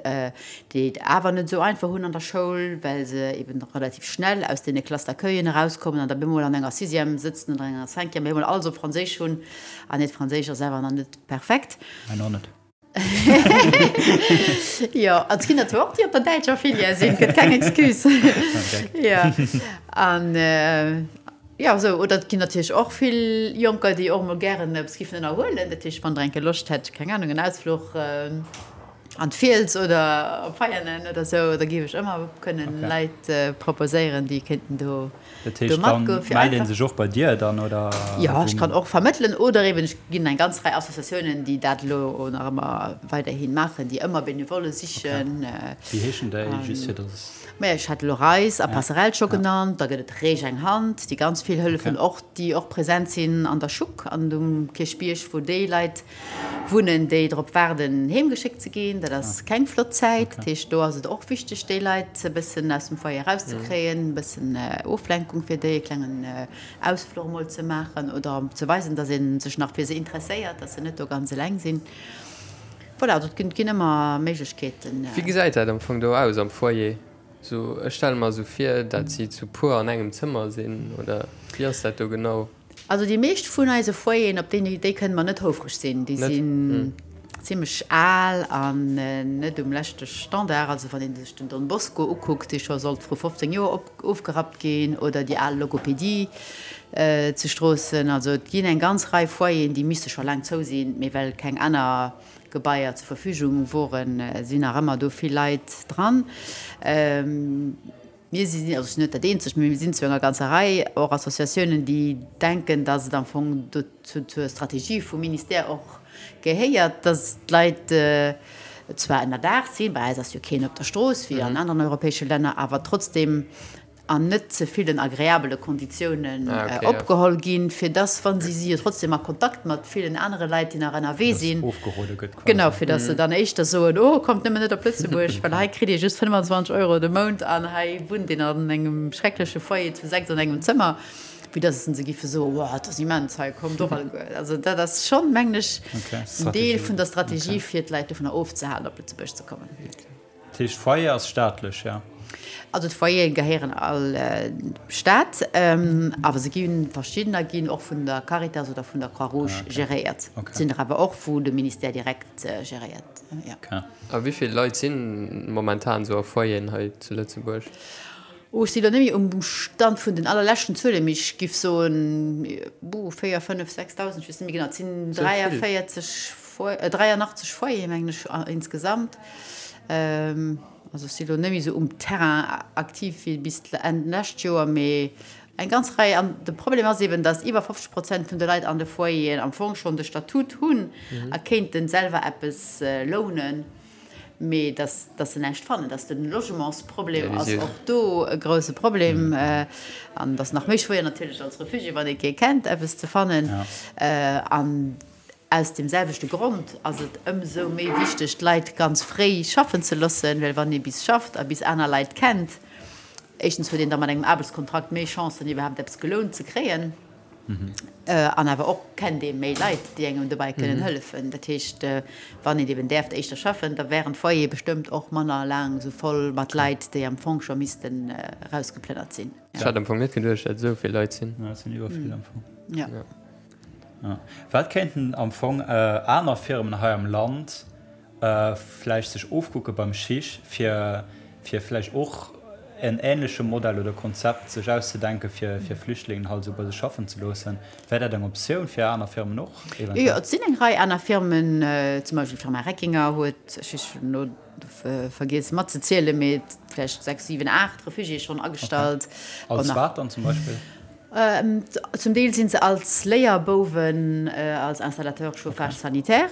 déi et awer net esou einfach hunn an der Schoul, well se eben relativ schnell aus deene Classes d'accueillen erauskommen an da bemol an enger Sixième sëtzen oder enger Cinquième, bemol alles op Franséisch hunn an hiert Franséisch ass awer nach net perfekt. Mäin och net. Jo, an et ginn der zwar och, déi op der däitscher Filière sinn, gëtt keng Excuse. Jo, an jo, esou. Oder et ginn natierlech och vill Jonker, déi och emol gären eppes giffen ënnerhuelen. Dat heescht, wann Der eng Kéier Loscht hätt, keng Anung, en Ausfluch. An d'Fiels oder op Veianen oder sou, da géif ech ëmmer kënnen Leit proposéieren, déi kéinten do Dat heescht, dann mellt ee sech och bei dir dann, oder? Jo, ech kann och vermëttelen oder eben ech ginn eng ganz Rei Associatiounen, déi dat elo nach ëmmer weiderhi maachen, déi ëmmer Benevolle sichen. Wéi heeschen déi, just fir datt. Maja, ech hat elo Reis a Passerell scho genannt, da gëtt et Reech eng Hand, déi ganz vill hëllefen, och déi och present sinn an der Schuck an um Kierchbierg, wou déi Leit Wunnen, déi drop waarden, heem geschéckt ze ginn. Dat ass keng flott Zäit. Dat heescht, do ass et och wichteg, déi Leit e bëssen aus dem Foyer erauszekréien, e bëssen Oflenkung fir déi, e klengen Ausfluch emol ze maachen oder ze weisen, datt ee sech nach fir se interesséiert, datt se net do ganz eleng sinn. Voilà, also et ginn ëmmer Méiglechkeeten. Wéi gesäit dat am Fong do aus am Foyer? Sou, ech stelle mer esou vir, dat si zu puer an engem Zëmmer sinn, oder wéi ass dat do genau? Also déi meescht vun eise Foyeren, op déi, déi kënne mer net houfreg sinn, déi sinn zimlech al an net um leschte Standard. Also wann ee sech den Don Bosco ukuckt, dee scho sollt vru 15 Joer ofgerappt ginn, oder déi al Logopedie zu Stroossen. Also et ginn eng ganz Rei Foyeren, déi misste scho laang zou sinn, mee well keng aner Gebaier zur Verfügung woren, sinn nach ëmmer do vill Leit dran. Mir sinn, also ech sinn net dat eenzegt, mee mir sinn zu enger ganzer Rei och Associatiounen, déi denken, datt et am Fong dozou zur Strategie vum Ministère och gehéiert, datt d'Leit zwar ënnerdaach sinn, bei eis ass jo keen op der Strooss wéi an aneren europäesche Länner, awer trotzdem an net ze villen agreabele Konditiounen opgeholl ginn, fir dass, wa si si jo trotzdem a Kontakt mat villen anere Leit, déi nach ënnerwee sinn, genau, fir dass se dann éischter soen, oh, kommt nëmmen net op Lëtzebuerg, well hei kritt Dir just 25 Euro de Mount an hei wunnt een an engem schreckleche Foyer zu 6 an engem Zëmmer, wéi dass se giffe soen, oh, et ass immens hei, kommt och alleguer. Also dat ass schonn, mengen ech, en Deel vun der Strategie, fir d'Leit dovunner ofzehalen, op Lëtzebuerg ze kommen. Dat heescht, d'Foyer ass staatlech, jo? Also d'Foyere gehéieren all dem Staat, awer se ginn, verschiddener ginn och vun der Caritas oder vun der Croix-Rouge geréiert. Et sinn der awer och, wou de Ministère direkt geréiert, jo. A wéi vill Leit si momentan esou a Foyeren hei zu Lëtzebuerg? Oh, ech si lo net méi um Stand vun den allerleschten Zuelen, mee ech giff soen, buh, 4, 5, 6.000, ech weess net méi genau. Et sinn 43, 83 Foyere mengen ech insgesamt. Also ech si lo net méi esou um Terrain aktiv wéi bis Enn d'lescht Joer, mee eng ganz Rei. An de Problem ass eben, datt iwwer 50 Prozent vun de Leit an de Foyeren am Fong schonn de Statut hunn a kéinten selwer eppes lounen. Mee dass, dass se näischt fannen, dass de Logementsproblem ass och do e grouse Problem. An et ass nach méi schwéier natierlech als Refugié, wann ee kee kennt, eppes ze fannen. An aus deem selwechte Grond ass et ëmsou méi wichteg, d'Leit ganz fréi schaffen ze loossen, well wann ee bis schafft a bis aner Leit kennt, éischtens huet een da mat engem Aarbechtskontrakt méi Chancen, iwwerhaapt eppes gelount ze kréien. An awer och kennt ee méi Leit, déi engem dobäi kënnen hëllefen. Dat heescht, wann een eben däerft éischter schaffen, da wären d'Foyere bestëmmt och manner laang esou voll mat Leit, déi am Fong scho missten erausgeplënnert sinn. Ech hat am Fong net geduecht, dat esou vill Leit sinn. Jo, et sinn iwwer vill am Fong. Jo. Wat kéinten am Fong aner Firmen hei am Land vläicht sech ofkucke beim Chich, fir fir vläicht och en ähnleche Modell oder Konzept sech auszedenke fir fir Flüchtlingen halt esou bei sech schaffen ze loossen. Wär dat eng Optioun fir aner Firmen och eventuell? Jo, et sinn eng Rei aner Firmen, zum Beispill d'Firma Reckinger huet, ech hunn elo vergiess matzezielen, mee vläicht 6, 7, 8 Refugiéë schonn agestallt. Als wat dann zum Beispill? Zum Deel si se als Léierbouwen, als Installateur chauffage sanitaire.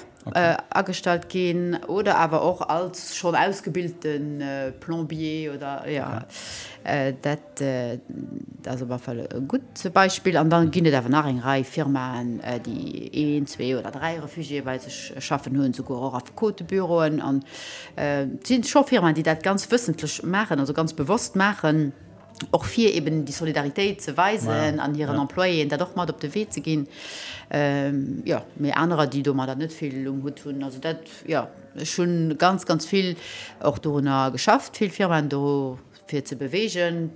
Agestallt ginn oder awer och als schonn ausgebilte Plombier oder jo. Dat ass op alle Fall e gutt Beispill. An da ginn et awer nach eng Rei Firmaen, déi een, zwee oder dräi Refugiéë bei sech schaffen hunn, souguer och Affekotebüroen. An et si scho Firmaen, déi dat ganz wëssentlech maachen, also ganz bewosst maachen. och fir eben déi Solidaritéit ze weisen an hiren Employéen dat och mat op de Wee ze ginn. Jo, mee anerer, déi domadder net vill um Hutt hunn. Also dat, jo, ech hu ganz, ganz vill och dorunner geschafft, vill Firmaen do fir ze beweegen.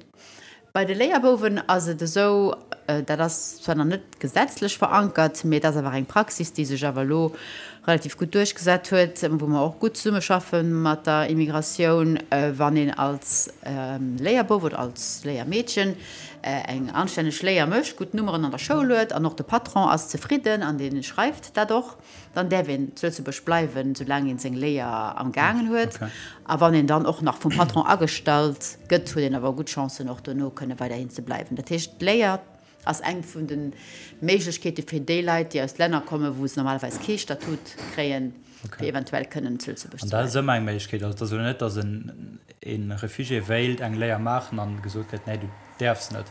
Bei de Léierbouwen ass et esou. dat ass zwar nach net gesetzlech verankert, mee et ass awer eng Praxis, déi sech awer elo relativ gutt duerchgesat huet, wou mer och gutt zesummeschaffe mat der Immigratioun, wann een als Léierbouf oder als Léiermeedchen eng anstänneg Léier mécht, gutt Nummeren an der Schoul huet an och de Patron ass zefridden an dee schreift dat och, dann däerf een zu Lëtzebuerg bleiwen, soulaang een seng Léier am gaangen huet. A wann een dann och nach vum Patron agestallt gëtt, huet een awer gutt Chancen, och dono kënne weiderhin ze bleiwen. Dat heescht, d'Léier ass eng vun de Méiglechkeete fir déi Leit, déi aus Länner kommen, wou se normalerweis kee Statut kréien, fir eventuell kënnen zu Lëtzebuerg ze bleiwen. An dat ass ëmmer eng Méiglechkeet. Also et ass elo net, datt e Refugié wéilt eng Léier maachen an gesot kritt, nee, du däerfs net.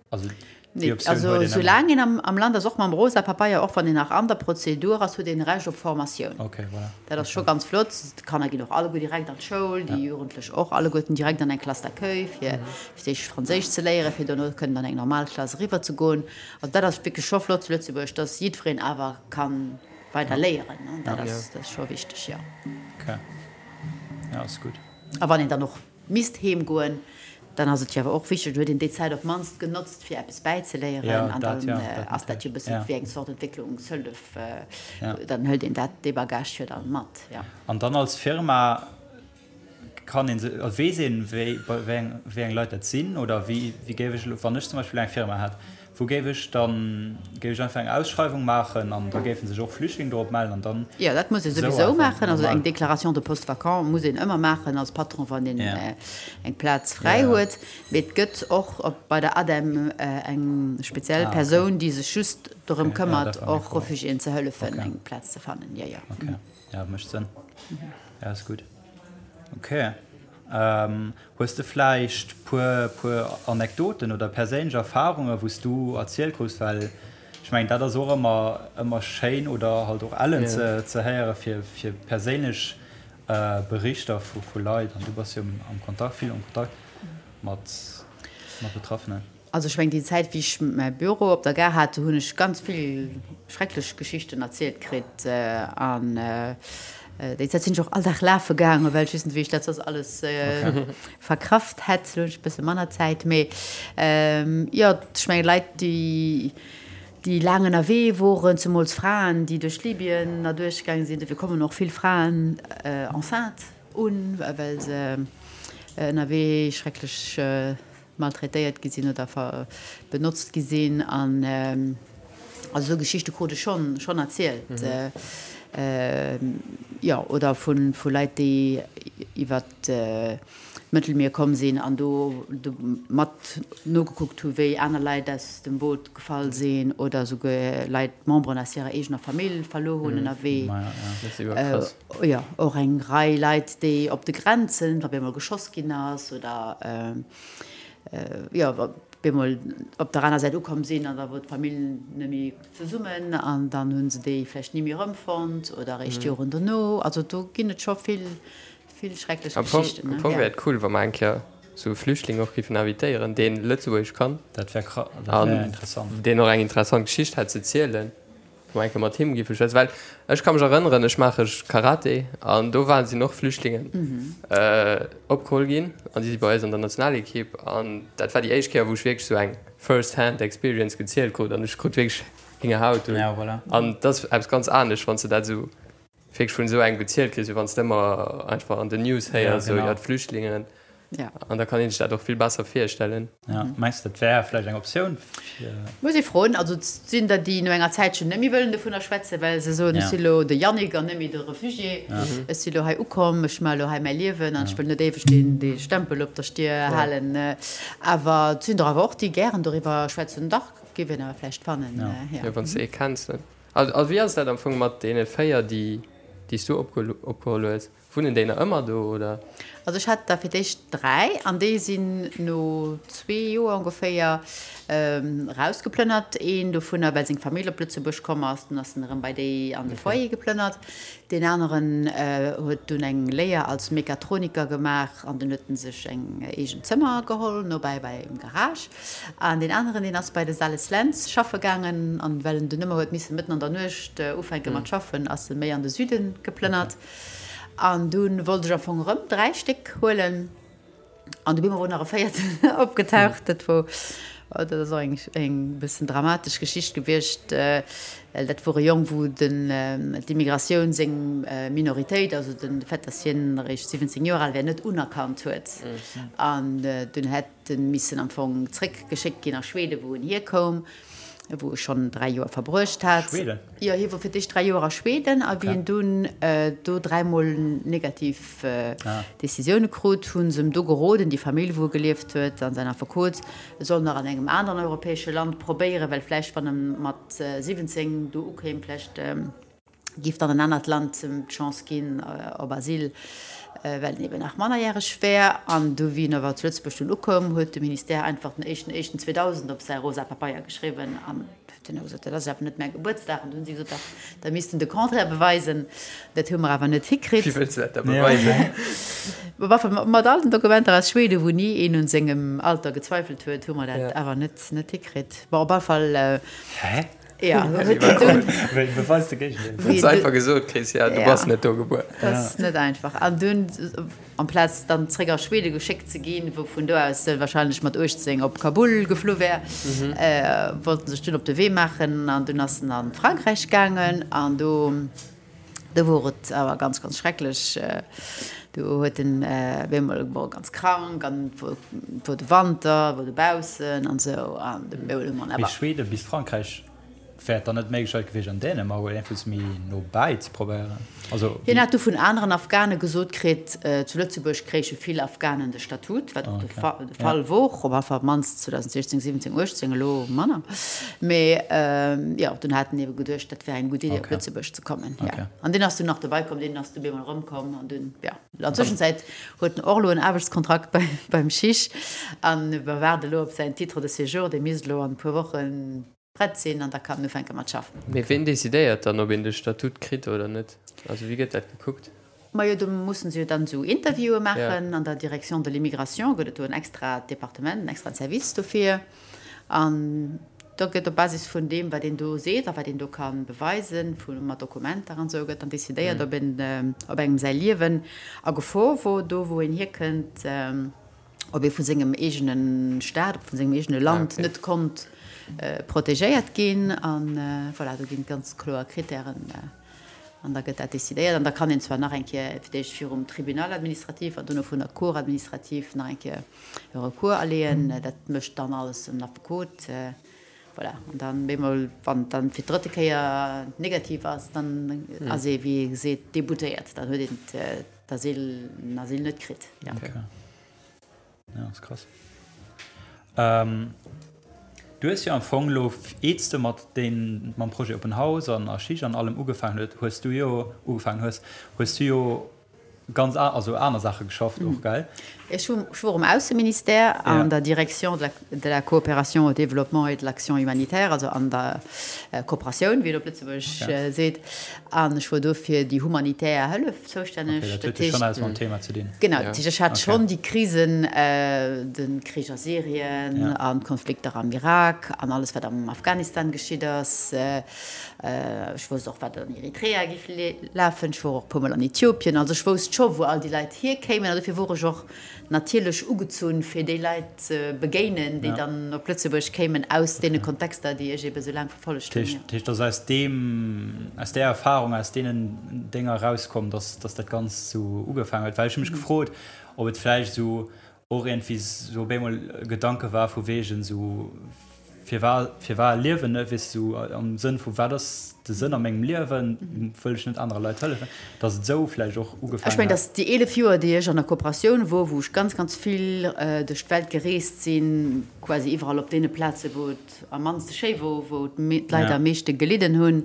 Also déi Optioun huet een ëmmer. Soulaang een am Land ass, och mam rosa Papeier, och wann een nach an der Prozedur ass, huet een Recht op Formatioun. Okay, voilà. Dat ass scho ganz flott. D'Kanner ginn och alleguer direkt an d'Schoul, déi Jugendlech och alleguerten direkt an eng Classe d'accueil, fir fir d'éischt Franséisch ze léieren, fir dono kënnen an eng normal Klass eriwwer ze goen. Also dat ass wierklech scho flott zu Lëtzebuerg, dass jiddwereen awer ka weider léieren. Dat ass, dat ass scho wichteg, jo. Okay, jo, ass gutt. A wann een dann och misst heem goen, dann ass et jo awer och wichteg, dann huet een déi Zäit op d'mannst genotzt, fir eppes bäizeléieren. An dann ass dat jo e bësse wéi eng Zort Entwécklungshëllef. Dann hëlt een dat, dee Bagage jo dann mat, jo. An dann als Firma kann een se, weess een, wéi wéi eng Leit dat sinn? Oder wéi wéi géif ech elo, wann ech zum Beispill eng Firma hätt, wou géif ech dann, géif ech einfach eng Ausschreiwung maachen an da géife sech och Flüchtlinge dorop mellen an dann Jo, dat muss ee esou souwisou einfach maachen. Also eng normal? Déclaration de poste vacant muss een ëmmer maachen als Patron, wann een Ja. eng Plaz fräi Ja. huet. Mee et gëtt och op bei der ADEM eng speziell Ah, okay. Persoun, déi sech just dorëm Okay, ja, këmmert, dat war meng och Fro. Refugiéen ze hëllefen, Okay. eng Plaz ze fannen. Jo, jo. Okay, ja, mécht Sënn. Ja, ass gutt. Ok. Hues de vläicht puer puer Anekdoten oder perséinlech Erfarungen, wou s du erzielt krus? Well ech mengen, dat ass och ëmmer ëmmer schéin oder halt och ellen ze ze héiere fir fir perséinlech Berichter vu vu Leit. An du bass jo am Kontakt, vill am Kontakt mat mat Betraffenen. Also ech mengen, déi Zäit wéi ech mäi Büro op der Gare hat, do hunn ech ganz vill schrecklech Geschichten erzielt kritt. An déi Zäit sinn ech och all Dag lafe gaangen, well ech wéisst net, wéi ech dat soss alles verkraft hätt. Elo hunn ech e bësse manner Zäit. Mee jo, ech mengen, Leit, déi, déi laang ënnerwee woren, zemools Fraen, déi duerch Libyen erduerch gaange sinn, dofir kommen och vill Fraen enceinte un, well se ënnerwee schrecklech maltraitéiert gi sinn oder benotzt gi sinn an also esou Geschichte krut ech schonn schonn erzielt jo oder vu vu Leit déi iwwer d'Mëttelmier komm sinn an do do mat nogekuckt hu wéi aner Leit aus dem Boot gefall sinn oder esouguer Leit Memberen aus hirer eegener Famill verluer hunn ënnerwee. Jo och eng Rei Leit déi op de Grenzen wa bemol geschoss ginn ass oder jo wa bemol op der aner Säit ukomm sinn an da wor d'Famill net méi zesummen an dann hu se déi vläicht ni méi erëmfonnt oder eréischt Joren dono. Also do ginn et scho vill vill schrecklech Am Fong, Geschichten. am Fong wär et cool, wa mer eng Kéier sou e Flüchtling och géifen invitéieren, deen Lëtzebuergesch kann Dat wär kra, dat wär an interessant. deen och eng interessant Geschicht hätt ze zielen. Wou eng Kéier mat him géif ech schwätzen, well ech ka mech erënneren, ech maache Karate an do waren, sinn och Flüchtlingen opgeholl ginn an déi si bei eis an der Nationalekipp an dat war déi éischt Kéier, wou ech wierklech esou eng first hand experience gezielt krut an ech krut wierklech Héngerhaut an dat ass eppes ganz anescht, wann s de dat esou wierklech vun esou engem gezielt kriss, wéi wann s de ëmmer einfach an den News héiers, esou, jo, d'Flüchtlingen. An da kann een sech dat och vill besser virstellen. Ja, mengs de, dat wär vläicht eng Optioun fir. Muss ee froen. Also et sinn der, déi no enger Zäitchen net méi wëllen dovunner schwätzen, well se soen, ech si lo de Yannick an net méi de Refugié. Ech si lo hei ukomm, ech maache lo hei mäi Liewen an ech wëll net éiweg deen, dee Stempel op der Stier halen. Awer et sinn der awer och, déi gären doriwwer schwätzen. Dach, géif een awer vläicht fannen, jo. Jo, wann s de ee kenns, dann. A wéi ass dat am Fong mat deene 4, déi déi s du opgeholl hues? Wunnen déi nach ëmmer do, oder? Also ech hat der fir d'éischt 3 an déi sinn no zwee Joer ongeféier erausgeplënnert. Een dovunner, well seng Famill op Lëtzebuerg komm ass, dunn ass en erëm bei déi an de Foyer geplënnert. Deen aneren huet dunn eng Léier als Mechatroniker gemaach an dunn huet en sech eng eegen Zëmmer geholl, nobäi beim Garage. An deen aneren, deen ass bei de Sales Lentz schaffe gaangen. An well en dunn ëmmer huet misse mëtten an der Nuecht ufänke mat schaffen, ass e méi an de Süde geplënnert. An dunn wollt ech am Fong erëm 3 Stéck huelen. An du bemol wor nach e véierten opgetaucht. Dat wor. Dat ass och eng eng bëssen dramatesch Geschicht gewiescht. Well dat wor e Jong, wou den d'Immigratioun seng Minoritéit, also den Fait, datt hien eréischt 17 Joer al wär, net unerkannt huet. An dunn hätt en missen am Fong zréckgeschéckt ginn a Schweden, wou en hierkoum, wou e schonn 3 Joer verbruecht hat. Schweden? Jo, hie wor fir d'éischt 3 Joer a Schweden a wéi en dunn do dräimol negativ Decisioune krut, hu se em do geroden, déi Famill, wou e gelieft huet, an säin Affekot, e soll nach an engem aneren europäesche Land probéieren, well vläicht, wann e mat 17 do ukéim, vläicht géif dann en anert Land em d'Chance ginn op Asyl, well en eben nach mannerjäreg wär. An du, wéi en awer zu Lëtzebuerg dunn ukoum, huet de Ministère einfach den éischten éischten 2000 op säi rosa Papeier geschriwwen an huet dunn gesot, dat ass awer net mäi Gebuertsdag. An du hunn si gesot, dach, da misst en de Contraire beweisen. Dat hu mer awer net hikritt. Wéi wëlls de dat da beweisen? Mat all den Dokumenter aus Schweden, wou ni een un sengem Alter gezweifelt huet, hu mer dat awer net hikritt. Bon, op alle Fall. Hä? Ja, huet en dunn. Wéi beweis de Géigendeel? Huet se einfach gesot kriss, ja, du bass net do gebuer. Dat ass net einfach. An dunn, amplaz dann zréck a Schwede geschéckt ze ginn, wou vun do aus se wahrscheinlech mat 18 op Kabul geflu wär, wollt en sech dunn op de Wee maachen. An dunn ass en a Frankräich gaangen an do. Do wor et awer ganz, ganz schrecklech. Do huet en op eemol, wor e ganz krank an et wor, et wor de Wanter, wor dobaussen an esou an de Meul hu mer awer. Mee Schweden bis Frankräich, wär et dann net d'Méiglechkeit gewiescht an Dänemark oder iergendwous méi no bäi ze probéieren? Also Hien hat du vun aneren Afghane gesot kritt, zu Lëtzebuerg kréiche vill Afghanen de Statut, wat och de Fall wor, op alle Fall op d'mannst 2016, 17, 18, elo manner. Mee jo, dunn hat en ebe geduecht, dat wär eng gutt Idee, op Lëtzebuerg ze kommen. Jo. An deen ass dunn nach dobei komm, deen ass du bemol erëmkomm an dunn, jo. An Tëschenzäit huet en och elo en Aarbechtskontrakt beim CHIJ an mer waarde elo op säin Titre de séjour, dee misst elo an e puer Wochen prett sinn an da kann en ufänke mat schaffen. Mee ween decidéiert dann, ob een de Statut kritt oder net? Also wéi gëtt dat gekuckt? Majo, do mussen se jo dann esou Interviewe maachen. An der Direction de l'immigration gëtt et do en extrat Departement, en extraen Service dofir. An da gëtt op Basis vun deem, wat een do seet a wat een do ka beweisen, vu mat Dokumenter an esou, gëtt dann decidéiert, ob een, ob engem säi Liewen a Gefor wor, do wou een hierkënnt, ob ee vu sengem eegene Staat, ob vun sengem eegene Land net konnt protegéiert ginn. A voilà, do ginn et ganz kloer Krittären. An da gëtt dat decidéiert. An da kann een zwar nach eng Kéier fir d'éischt virum Tribunal administratif an dono vun der Cour administrative nach eng Kéier e Recours aleeën. Dat mécht dann alles en Affekot. Voilà. An dann bemol, wann et dann fir d'drëtte Kéier negativ ass, dann ass ee, wéi ee seet, déboutéiert. Dann huet een d'Asyl, den Asyl net kritt. Jo. Ja, ass krass. Ähm, du hues jo am Fong lo, eets de mat den, mam Projet Open House an a Schich an allem ugefaangen huet, hues du jo, ugefaangen hues, hues du jo ganz a, also aner Saache geschafft och, gell? Ech hu, ech wor um Ausseministère an der Direction de la, de la coopération au développement et de l'action humanitaire, also an der Kooperatioun, wéi een op Lëtzebuergesch seet, an ech wor do fir déi humanitär Hëllef zoustänneg. Okay, dat huet jo schonn eppes mam Thema ze dinn. Genau, dat heescht, ech hat schonn déi Krisen, de Krich a Syrien an d'Konflikter am Irak an alles, wat am Afghanistan geschitt ass. Ech wousst och, wat an Eritrea géif lafen. Ech wor och e puermol an Äthiopien. Also ech wousst scho, wou all déi Leit hierkéimen. An dofir wor ech och natierlech ugezunn, fir déi Leit ze begéinen, déi dann op Lëtzebuerg kéimen aus deene Kontexter, déi ech ebe sou laang verfollegt hunn. Dat heescht, et ass aus deem, aus där Erfahrung, aus deenen Dénger erauskomm, dass, dass dat Ganzt sou ugefaangen huet? Well ech hu mech gefrot, ob et vläicht esou och iergendwéi sou op eemol e Gedanke war vu wegen sou, Firwar, firwar liewen, ne, weess du, am Sënn vu wat ass de Sënn a mengem Liewen, wëll ech net anere Leit hëllefen, datt et esou vläicht och ugefaangen Ech mengen, datt déi 11 Joer, déi ech an der Kooperatioun wor, wou ech ganz, ganz vill duerch d'Welt gereest sinn, quasi iwwerall op deene Plaze wou et am mannste schéi wor, wou d'Leit am meeschte gelidden hunn,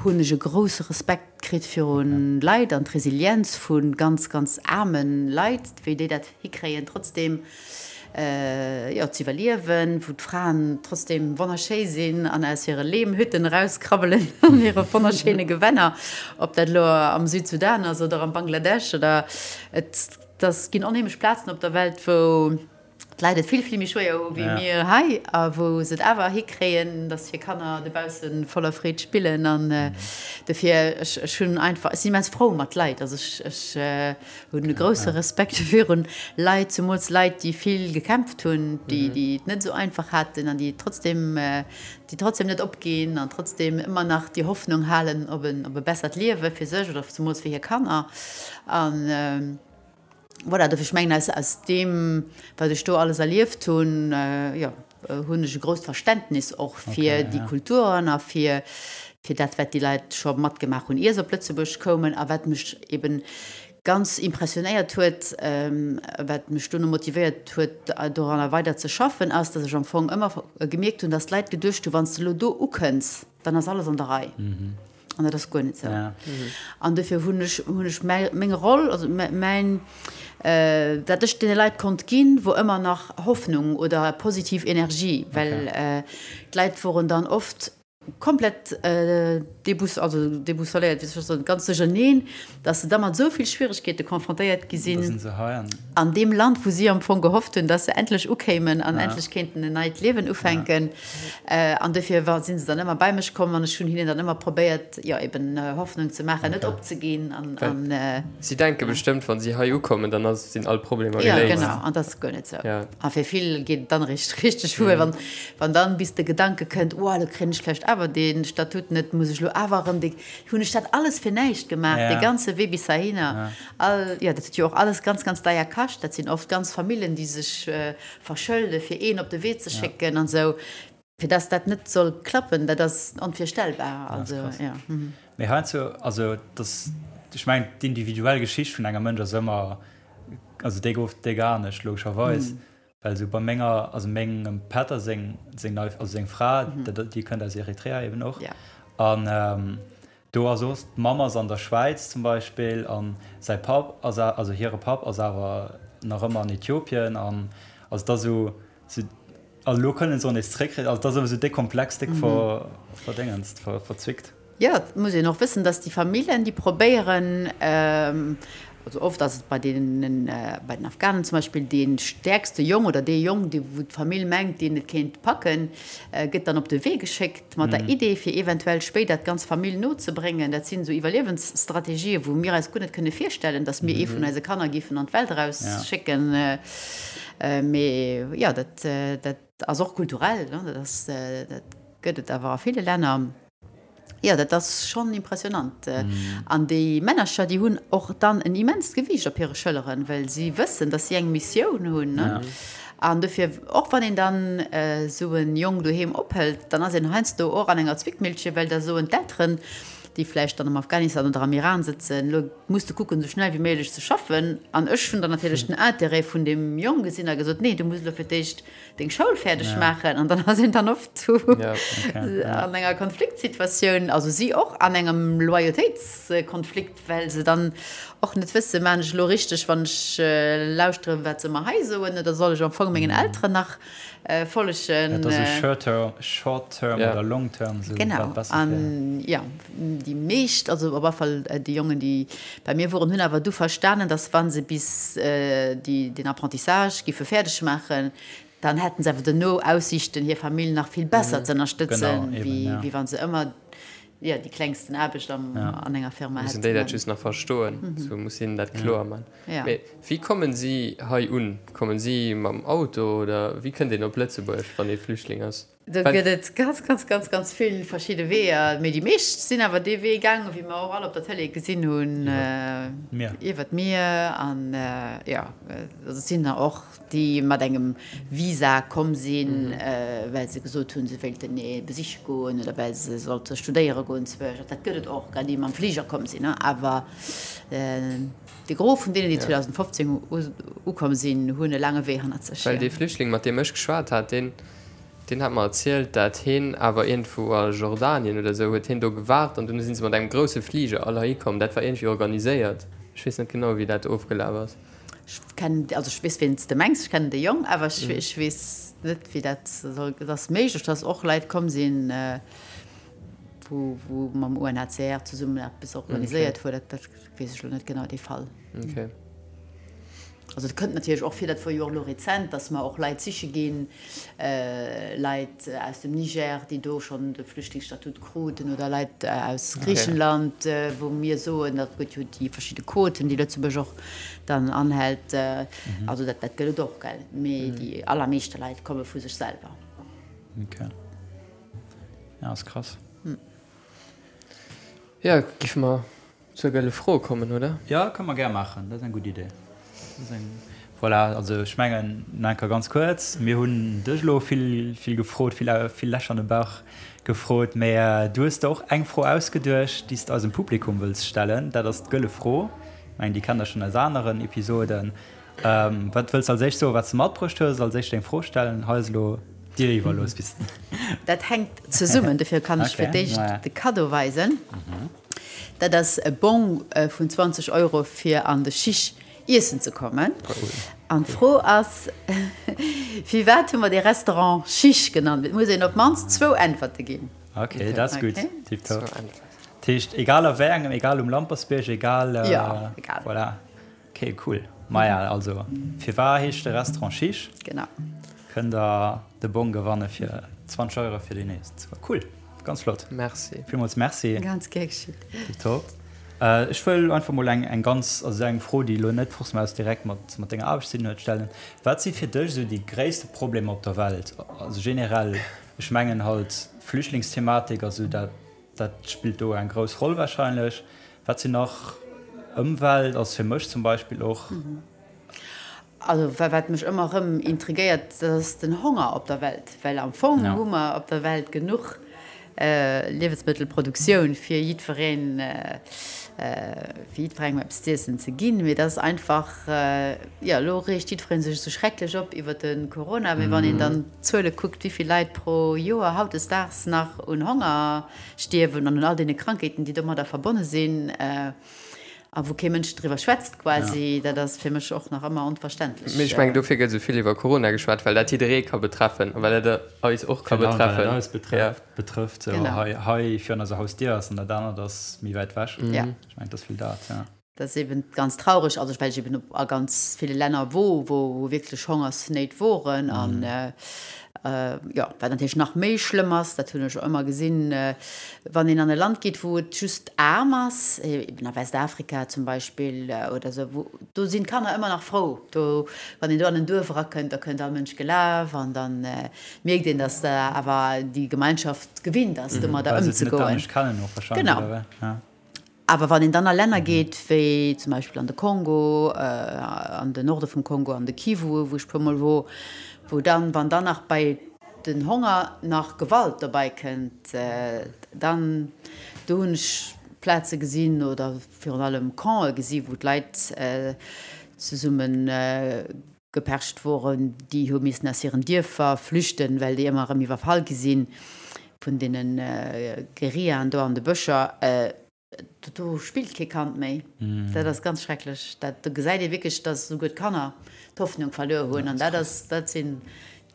hunn ech e grousse Respekt kritt virun Leit an d'Resilienz vu ganz, ganz aarme Leit, wéi déi dat hikréien, trotzdeem jo, z'iwwerliewen, wou d'Fraen trotzdeem wonnerschéi sinn an aus hire Lehmhütten erauskrabbelen an hire wonnerschéine Gewänner, ob dat elo am Südsudan ass oder am Bangladesch oder et, dass ginn onheemlech Plazen op der Welt, wou. D'Leit et vill, vill méi schwéier hu wéi mir hei a wou se et awer hikréien, datt hir Kanner dobausse voller Freed spillen. An dofir, ech, ech hunn einfach, ech sinn immens frou mat Leit. Also ech, ech hunn e grousse Respekt virun Leit, zemools Leit, déi vill gekämpft hunn, déi, déi et net esou einfach haten an déi trotzdem, déi trotzdem net opginn an trotzdem ëmmer nach déi Hoffnung halen op en, op e bessert Liewe fir sech oder zemools fir hir Kanner. An. Voilà, dofir, ech mengen, aus, aus deem, wat ech do alles erlieft hunn, jo, hunn ech e grousst Verständnis och fir déi Kulturen a fir, fir dat, wat déi Leit scho matgemaach hunn, ier se op Lëtzebuerg koumen a wat mech eben ganz impressionéiert huet, wat mech dono motivéiert huet, doranner weider ze schaffen, ass, dass ech am Fong ëmmer gemierkt hunn, dass d'Leit geduecht hunn, wann s de elo do ukënns, dann ass alles an der Rei. An dat ass guer net esou. Ja. An dofir hunn ech, hunn ech mäi, meng Roll, also mäin, dat ech deene Leit konnt ginn, wor ëmmer nach Hoffnung oder positiv Energie, well okay. d'Leit woren dann oft komplett débous, also déboussoléiert, wéi soll ech soen, ganz duercherneen, dass se da mat esou vill Schwieregkeete confrontéiert gi sinn an deem Land, wou si am Fong gehofft hunn, dass se endlech ukéimen an endlech kéinten en neit Liewen ufänken. An dofir war, si se dann ëmmer bei mech komm an ech hunn hinnen dann ëmmer probéiert, jo eben Hoffnung ze maachen, net opzeginn an, an. Si denke bestëmmt, wa si hei ukommen, dann ass, sinn all Problemer geléist. Jo, genau, an dat ass guer net esou. A fir vill geet et dann eréischt richteg wuer, wann, wann dann bis de Gedanke kënnt, oh, elo kréien ech vläicht awer dee Statut net, muss ech elo awer erëm dee, hunn ech dat alles fir näischt gemaach, dee ganze Wee bis heihinner. All, jo, dat huet jo och alles ganz, ganz deier kascht. Dat sinn oft ganz Famillen, déi sech verschëlde fir een op de Wee ze schécken an esou. Fir dass dat net soll klappen, dat ass onvirstellbar. Also, jo. Mee heiansdo, also dass, ech mengen, d'individuell Geschicht vun engem Mënsch ass ëmmer, also déi gouf déck anescht, logescherweis. Well esou bei menger, also mengem Pätter seng, seng nei, also seng Fra, déi kënnt aus Eritrea eben och. An do ass och, d'Mamm ass an der Schwäiz zum Beispill an säi Papp ass, also hire Papp ass awer nach ëmmer an Äthiopien an also et ass esou, esou, also elo kënnen se och nees zréck, also et ass ëmmer esou déck komplex, déck ver, verdéngenst, ver, verzwickt. Jo, et muss een och wëssen, dass déi Familljen, déi probéieren, also oft ass et bei deenen, bei den Afghanen zum Beispill, dee stäerkste Jong oder dee Jong, dee wou d'Famill mengt, deen et kéint packen, gëtt dann op de Wee geschéckt mat der Idee, fir eventuell spéider d'ganz Famill nozebréngen. Dat sinn esou Iwwerliewensstrategien, wou mir eis guer net kënne virstellen, dass mir ee vun eise Kanner géifen an d'Welt erausschécken. Mee jo, dat, dat ass och kulturell, dat ass, dat gëtt et awer a ville Länner. Jo, dat ass schonn impressionant. An déi Männercher, déi hunn och dann en immenst Gewiicht op hire Schëlleren, well si wëssen, datt si eng Missioun hunn. An dofir, och wann een dann esou e Jong doheem ophëlt, dann ass een heiansdo och an enger Zwickmillche, well da soen d'Elteren, déi vläicht dann am Afghanistan oder am Iran sëtzen, Elo muss de kucken, esou schnell wéi méiglech ze schaffen. An ech hunn dann natierlech den Interêt vun deem Jong gesinn a gesot, Nee, du muss elo fir d'éischt deng Schoul fäerdeg maachen an dann ass een dann oft an enger Konfliktsituatioun, also si och an engem Loyautéitskonflikt, well se dann och net wësse, maan ech elo richteg, wann ech lauschteren, wat se mer hei soen, oder soll ech am Fong mengen Elteren nach follegen? Dat ass esou short term oder long term, esou wat besser fir. Genau, an jo, déi meescht, also op alle Fall déi Jongen, déi bei mir woren, hunn awer du verstanen, dass wa se bis déi den Apprentissage giffe fäerdeg maachen, dann hätten se awer duerno Aussiichten, hir Famill nach vill besser ze ënnerstëtzen, wéi wa se ëmmer jo déi klengsten Aarbecht an enger Firma hätten. Mussen déi dat just nach verstoen, sou muss hinnen dat kloer man. Mee wéi kommen si hei un? Kommen si mam Auto oder wéi kënnt een op Lëtzebuerg, wann ee Flüchtling ass? Do gëtt et ganz, ganz, ganz, ganz vill verschidde Weeër. Mee déi meescht sinn awer dee Wee gaangen, wéi mer och all op der Tëlee gesinn hunn, iwwer d'Mier. An jo, also et sinn der och, déi mat engem Visa komm sinn, well se gesot hunn, se wéilten ee besiche goen oder well se sollte studéiere goen zwësch. Dat gëtt et och, déi mam Fliger komm sinn. Awer de Gros vun deenen, déi 2015 ukomm sinn, hunn e laange Wee hannert sech. Well dee Flüchtling, mat deem ech geschwat hat, deen Deen hat mer erzielt, dat heen awer iergendwou a Jordanien oder esou huet heen do gewaart an dunn si se mat engem grousse Fliger all heihi komm. Dat war iergendwéi organiséiert. Ech weess net genau, wéi dat ofgelaf ass. Ech kennen, also ech weess, ween s de mengs, ech kennen de Jong, awer ech, ech weess net, wéi dat soll. Et ass méiglech, dass och Leit komm sinn, wou, wou mam UNHCR zesummen eppes organiséiert huet. Dat, dat weess ech elo net genau, dee Fall. Okay. Also et kënnt natierlech och vir, dat wor jo och elo rezent, datt mer och Leit siche ginn, Leit aus dem Niger, déi do schonn de Flüchtlingsstatut kruten, oder Leit aus Griichenland, wou mir soen, dat gëtt jo déi verschidde Quoten, déi Lëtzebuerg och dann anhält. Also dat dat gëtt et och, gell. Mee déi allermeeschte Leit komme vu sech selwer. Okay. Ja, ass krass. Jo, giffe mer Zur gëlle Fro kommen, oder? Jo, kënne mer gär maachen. Dat ass eng gutt Idee. Dat ass eng, voilà, also ech mengen, nach eng Kéier ganz kuerz, Mir hunn dech elo vill, vill gefrot, vill, vill Lächer an de Bauch gefrot, mä du hues der och eng Fro ausgeduecht, déi s de eisem Publikum wëlls stellen. Dat ass d'gëlle Fro. Ech mengen, déi kennt der schonn aus aneren Episoden. Wat wëlls de als éischt soen, wat s de matbruecht hues? Als éischt deng Fro stellen? Hei ass elo dir iwwerlooss. Bis. Dat hänkt zesummen, dofir kann ech fir d'éischt de Kaddo weisen. Dat ass e Bong vun 20 Euro fir an de Chiche iessen ze kommen. An d'Fro ass, Firwat hu mer dee Restaurant Chiche genannt? Et muss een op d'mannst zwou Äntwerte ginn. Ok, dat ass gutt. Tiptop. Dat heescht, egal a wéi engem, egal um Lampersbierg, egal. Jo, egal. Voilà. Ok, cool. Maja, also, firwar heescht de Restaurant Chiche? Genau. Kënnt der de Bong gewanne fir 20 Euro fir déi nächst. Cool, ganz flott. Merci. Villmools Merci. Ganz gär geschitt. Tiptop. Ech wëll einfach mol eng, eng ganz, also eng Fro, déi elo net forcément aus direkt mat, mat denger Aarbecht ze dinn huet, stellen. Wat si fir dech esou déi gréisste Problemer op der Welt? Also generell, ech mengen halt Flüchtlingsthematik, also dat, dat spillt do eng grouss Roll wahrscheinlech. Wat sinn nach, Ëmwelt ass fir mech zum Beispill och. Also wat mech ëmmer erëm intrigéiert, dat ass den Honger op der Welt. Well am Fong hu mer op der Welt genuch Liewensmëttelproduktioun fir jiddwereen, fir jiddwerengem eppes z'iessen ze ginn. Mee dat ass einfach, jo elo reegt jiddweree sech esou schrecklech op iwwer de Corona, mee wann een dann d'Zuele kuckt, wéi vill Leit pro Joer hautdesdaags nach un Honger stierwen an un all deene Krankheeten, déi domadder verbonne sinn a wou kee Mënsch driwwer schwätzt quasi, dat ass fir mech och nach ëmmer onverständlech. Mee ech mengen, dofir gëtt esou vill iwwer Corona geschwat, well dat jidderee ka betreffen a well dat eis och ka betreffen. Well dat eis betrëfft, hei, hei virun eiser Hausdier ass an dat anert ass méi wäit ewech. Ech mengen, et ass vill dat, jo. Dat ass eben ganz traureg, also well ech eben a ganz ville Länner wor, wou wierklech Hongersnéit woren an jo, wat natierlech nach méi schlëmm ass, dat hunn ech och ëmmer gesinn, wann een an e Land geet, wou et just aarm ass, eben a Westafrika zum Beispill oder esou, wou do sinn d'Kanner ëmmer nach frou, do wann een do an en Duerf erakënnt, da kënnt all Mënsch gelaf an da mierkt een, datt awer déi Gemeinschaft gewinnt ass, domadder ëmzegoen. Genau. Awer wann een dann a Länner geet, wéi zum Beispill an de Kongo, an den Norde vum Kongo, an de Kivu, wou ech puermol wor, wou dann, wann dann nach bei den Honger nach Gewalt dobei kënnt, dann, do hunn ech Plaze gesinn oder virun allem Campe gesi wou d'Leit zesumme gepercht woren, déi hu missen aus hiren Dierfer flüchten, well déi ëmmer erëm iwwerfall gi si vun deene Guerillaen do an de Bëscher. Do spillt kee Kand méi. Dat ass ganz schrecklech. Dat, do gesäit ee wierklech, datt esouguer d'Kanner d'Hoffnung verluer hunn. An dat ass, dat sinn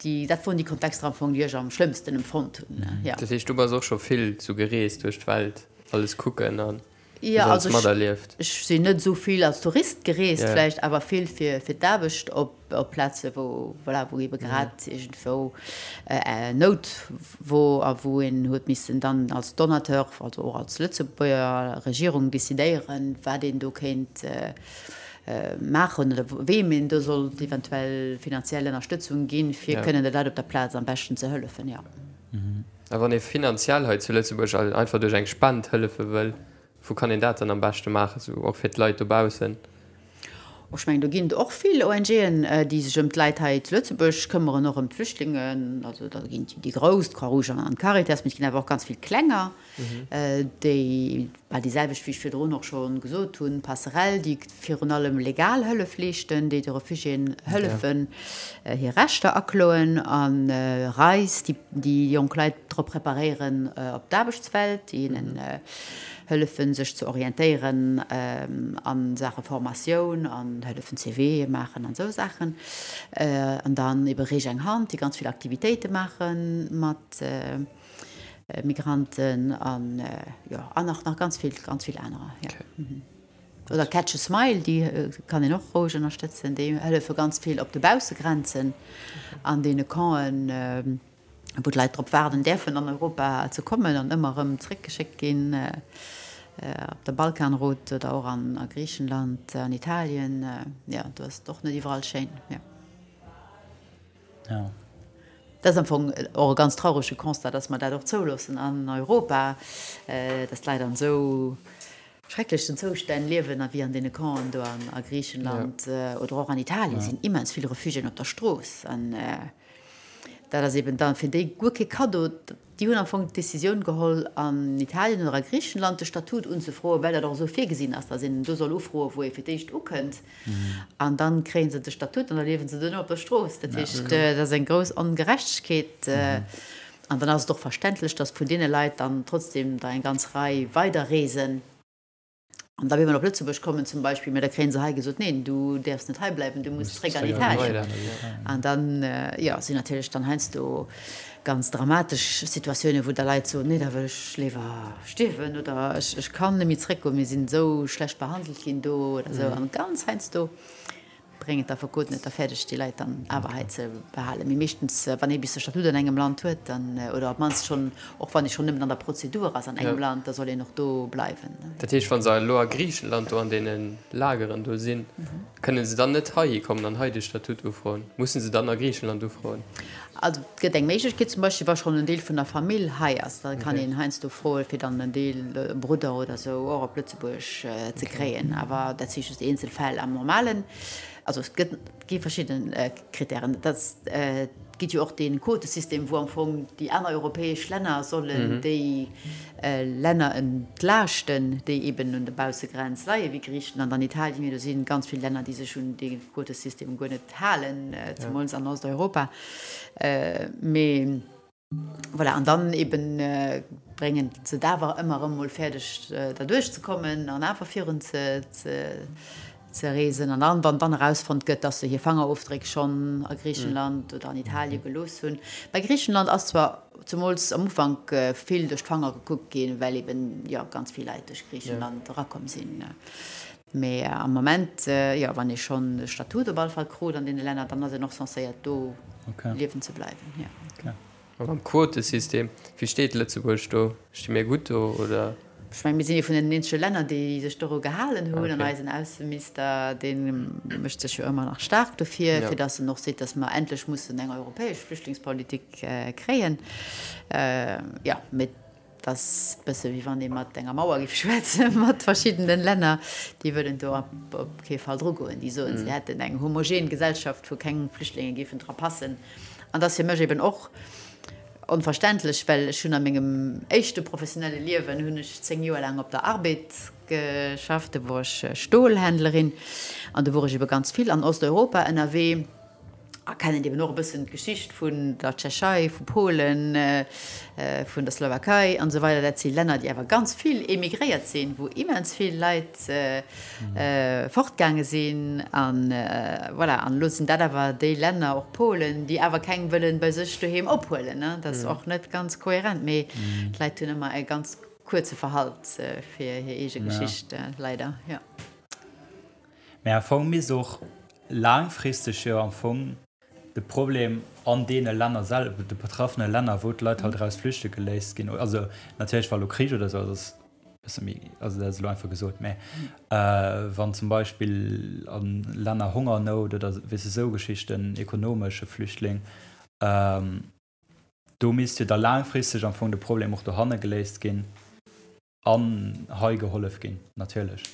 déi, dat woren déi Kontexter am Fong, déi ech am schlëmmsten empfonnt hunn, jo. Dat heescht, du bass och scho vill sou gereest duerch d'Welt, alles kucken an Jo, also ech, ech sinn net esou vill als Tourist gereest vläicht, awer vill fir, fir d'Aarbecht op, op Plaze wou, voilà, wou ebe grad iergendwou Nout wor a wou een huet missen dann als Donateur, also och als Lëtzebuerger Regierung decidéieren, wat een do kéint maachen oder weem een do sollt eventuell finanziell Ënnerstëtzung ginn, fir kënnen de Leit op der Plaz am beschten ze hëllefen, jo. A wann ee finanziell hei zu Lëtzebuerg einfach duerch eng Spend hëllefe wëll, wou kann een dat dann am beschte maachen, sou och fir d'Leit dobaussen? Ech mengen, do ginn et och vill ONGen, déi sech ëm d'Leit hei zu Lëtzebuerg këmmeren, och ëm d'Flüchtlingen. Also da ginn et déi grouss, d'Croix-Rouge an d'Caritas, mee et ginn awer och ganz vill klenger. Déi bal déi selwecht, wéi ech virdrun och scho gesot hunn, Passerell, déi virun allem legal Hëllef leeschten, déi de Refugiéen hëllefen, hir Rechter akloen, a RISE, déi déi jonk Leit drop preparéieren op d'Aarbechtswelt, déi hinnen hëllefen, sech ze orientéieren a Saache Formatioun an hëllefen CVe maachen an esou Saachen. An dann ebe Reech eng Hand, déi ganz vill Aktivitéite maache mat Migranten an jo an nach nach ganz vill ganz vill anerer jo. Oder Catch a Smile, déi kann een och roueg ënnerstëtzen. Déi hëllefe ganz vill op de Baussegrenzen an deene Campen, wou d'Leit drop waarden däerfen an Europa ze kommen an ëmmer erëm zréckgeschéckt ginn, op der Balkanroute oder och an a Griichenland, an Italien. Jo, do ass et och net iwwerall schéin. Jo. Ja. Dat ass am Fong och e ganz traurege Constat, dass mer dat och zouloossen an Europa, dass d'Leit an esou schrecklechen Zoustänn liewen a wéi an deene Campen do a Griichenland oder och an Italien sinn immens vill Refugiéen op der Strooss. An dat ass eben da fir déi guer kee Kaddo. Déi hunn am Fong d'Decisioun geholl, an Italien oder a Griichenland de Statut unzefroen, well dat och esou virgesinn ass, datt een do soll ufroen, wou ee fir d'éischt ukënnt. An da kréie se de Statut an da liewe se duerno op der Strooss. Dat heescht, dat ass eng grouss Ongerechtegkeet. An dann ass et och verständlech, datt vun deene Leit dann trotzdem der eng ganz Rei weiderreesen. An da wéi mer op Lëtzebuerg kommen zum Beispill, mä da kréie se hei gesot, neen, du däerfs net hei bleiwen, du muss zréck an Italien. An dann, jo, sinn natierlech dann heiansdo ganz dramatesch Situatiounen, wou da Leit soen, nee, da wëll ech léiwer stierwen oder ech, ech kann net méi zréckgoen, mir sinn esou schlecht behandelt ginn do oder esou. An ganz heiansdo bréngen d'Affekoten et da fäerdeg, déi Leit dann awer hei ze behalen. Mee meeschtens, wann ee bis de Statut an engem Land huet, dann, oder op d'mannst schonn, och wann ee schonn nëmmen an der Prozedur ass an engem Land, da soll een och do bleiwen. Dat heescht, wa se elo a Griichenland do an deene Lageren do sinn, kënne se dann net heihi kommen an hei de Statut ufroen? Musse se dann a Griichenland ufroen? Also et gëtt eng Méiglechkeet, zum Beispill wa schonn en Deel vun der Famill hei ass, da kann een heiansdo froe fir dann en Deel, e Brudder oder esou, och op Lëtzebuerg ze kréien. Awer dat si just eenzel Fäll. Am normalen, also et gëtt, et gi verschidde Krittären. Et ass, et gëtt jo och dee Quotesystem, wou am Fong déi aner europäesch Länner sollen déi Länner entlaaschten, déi eben un der Baussegrenz leien, wéi Griichenland an Italien. Mee do si ganz vill Länner, déi sech un dee Quotesystem guer net halen, zemools an Osteuropa. Mee voilà, an dann eben bréngen se et awer ëmmer erëm mol fäerdeg, derduerch ze kommen an awer virun ze ze reesen. An dann, wann dann erausfonnt gëtt, dass se hir Fangerofdréck schonn a Griichenland oder an Italie gelooss hunn. Bei Griichenland ass zwar zemools am Ufank vill duerch d'Fanger gekuckt ginn, well eben, jo, ganz vill Leit duerch Griichenland erakomm sinn. Mee am Moment, jo, wann ee schonn de Statut op alle Fall krut an deene Länner, dann ass een och censéiert do liewen ze bleiwen, jo. A mam Quotesystem, wéi steet Lëtzebuerg do? Sti mir gutt do, oder? Ech mengen, mir sinn ee vun den eenzege Länner, déi sech doru gehalen hunn. An eisen Ausseminister, dee mécht sech jo ëmmer nach staark dofir, fir datt en och seet, datt mer endlech mussen eng europäesch Flüchtlingspolitik kréien. Jo, mee Et ass e bësse wéi wann ee mat enger Mauer géif schwätzen, mat verschiddenen Länner. Déi wëllen do op kee Fall drugoen. Déi soen, si hätten eng homogen Gesellschaft, wou keng Flüchtlinge géifen dra passen. An dat ass fir mech eben och onverständlech, well ech hunn a mengem éischte professionelle Liewen hunn ech 10 Joer laang op der Arbed geschafft. Do wor ech Stolhändlerin an do wor ech ebe ganz vill an Osteuropa ënnerwee. A kennen eben och e bëssen d'Geschicht vun der Tschechei, vu Polen, vun der Slowakei an esou weider. Dat si Länner, déi awer ganz vill emigréiert sinn, wou immens vill Leit fortgaange sinn. An voilà, an elo sinn dat awer déi Länner, och Polen, déi awer keng wëllen bei sech doheem ophuelen. Dat ass och net ganz kohärent, mee d'Leit hunn ëmmer e ganz kuerze Verhalt fir hir eege Geschicht, leider, jo. Mä am Fong misst och laangfristeg jo am Fong de Problem an deene Länner selwer, de betraffene Länner, wou d'Leit halt eraus flüchte geléisst ginn, also natierlech wa lo Krich oder esou ass, ass e bësse méi, also dat ass elo einfach gesot, mä wann zum Beispill a Länner Hongernout oder weess de esou Geschichten, ekonomesche Flüchtling, do misst jo da laangfristeg am Fong de Problem och dohanne geléist ginn. An hei gehollef ginn, natierlech.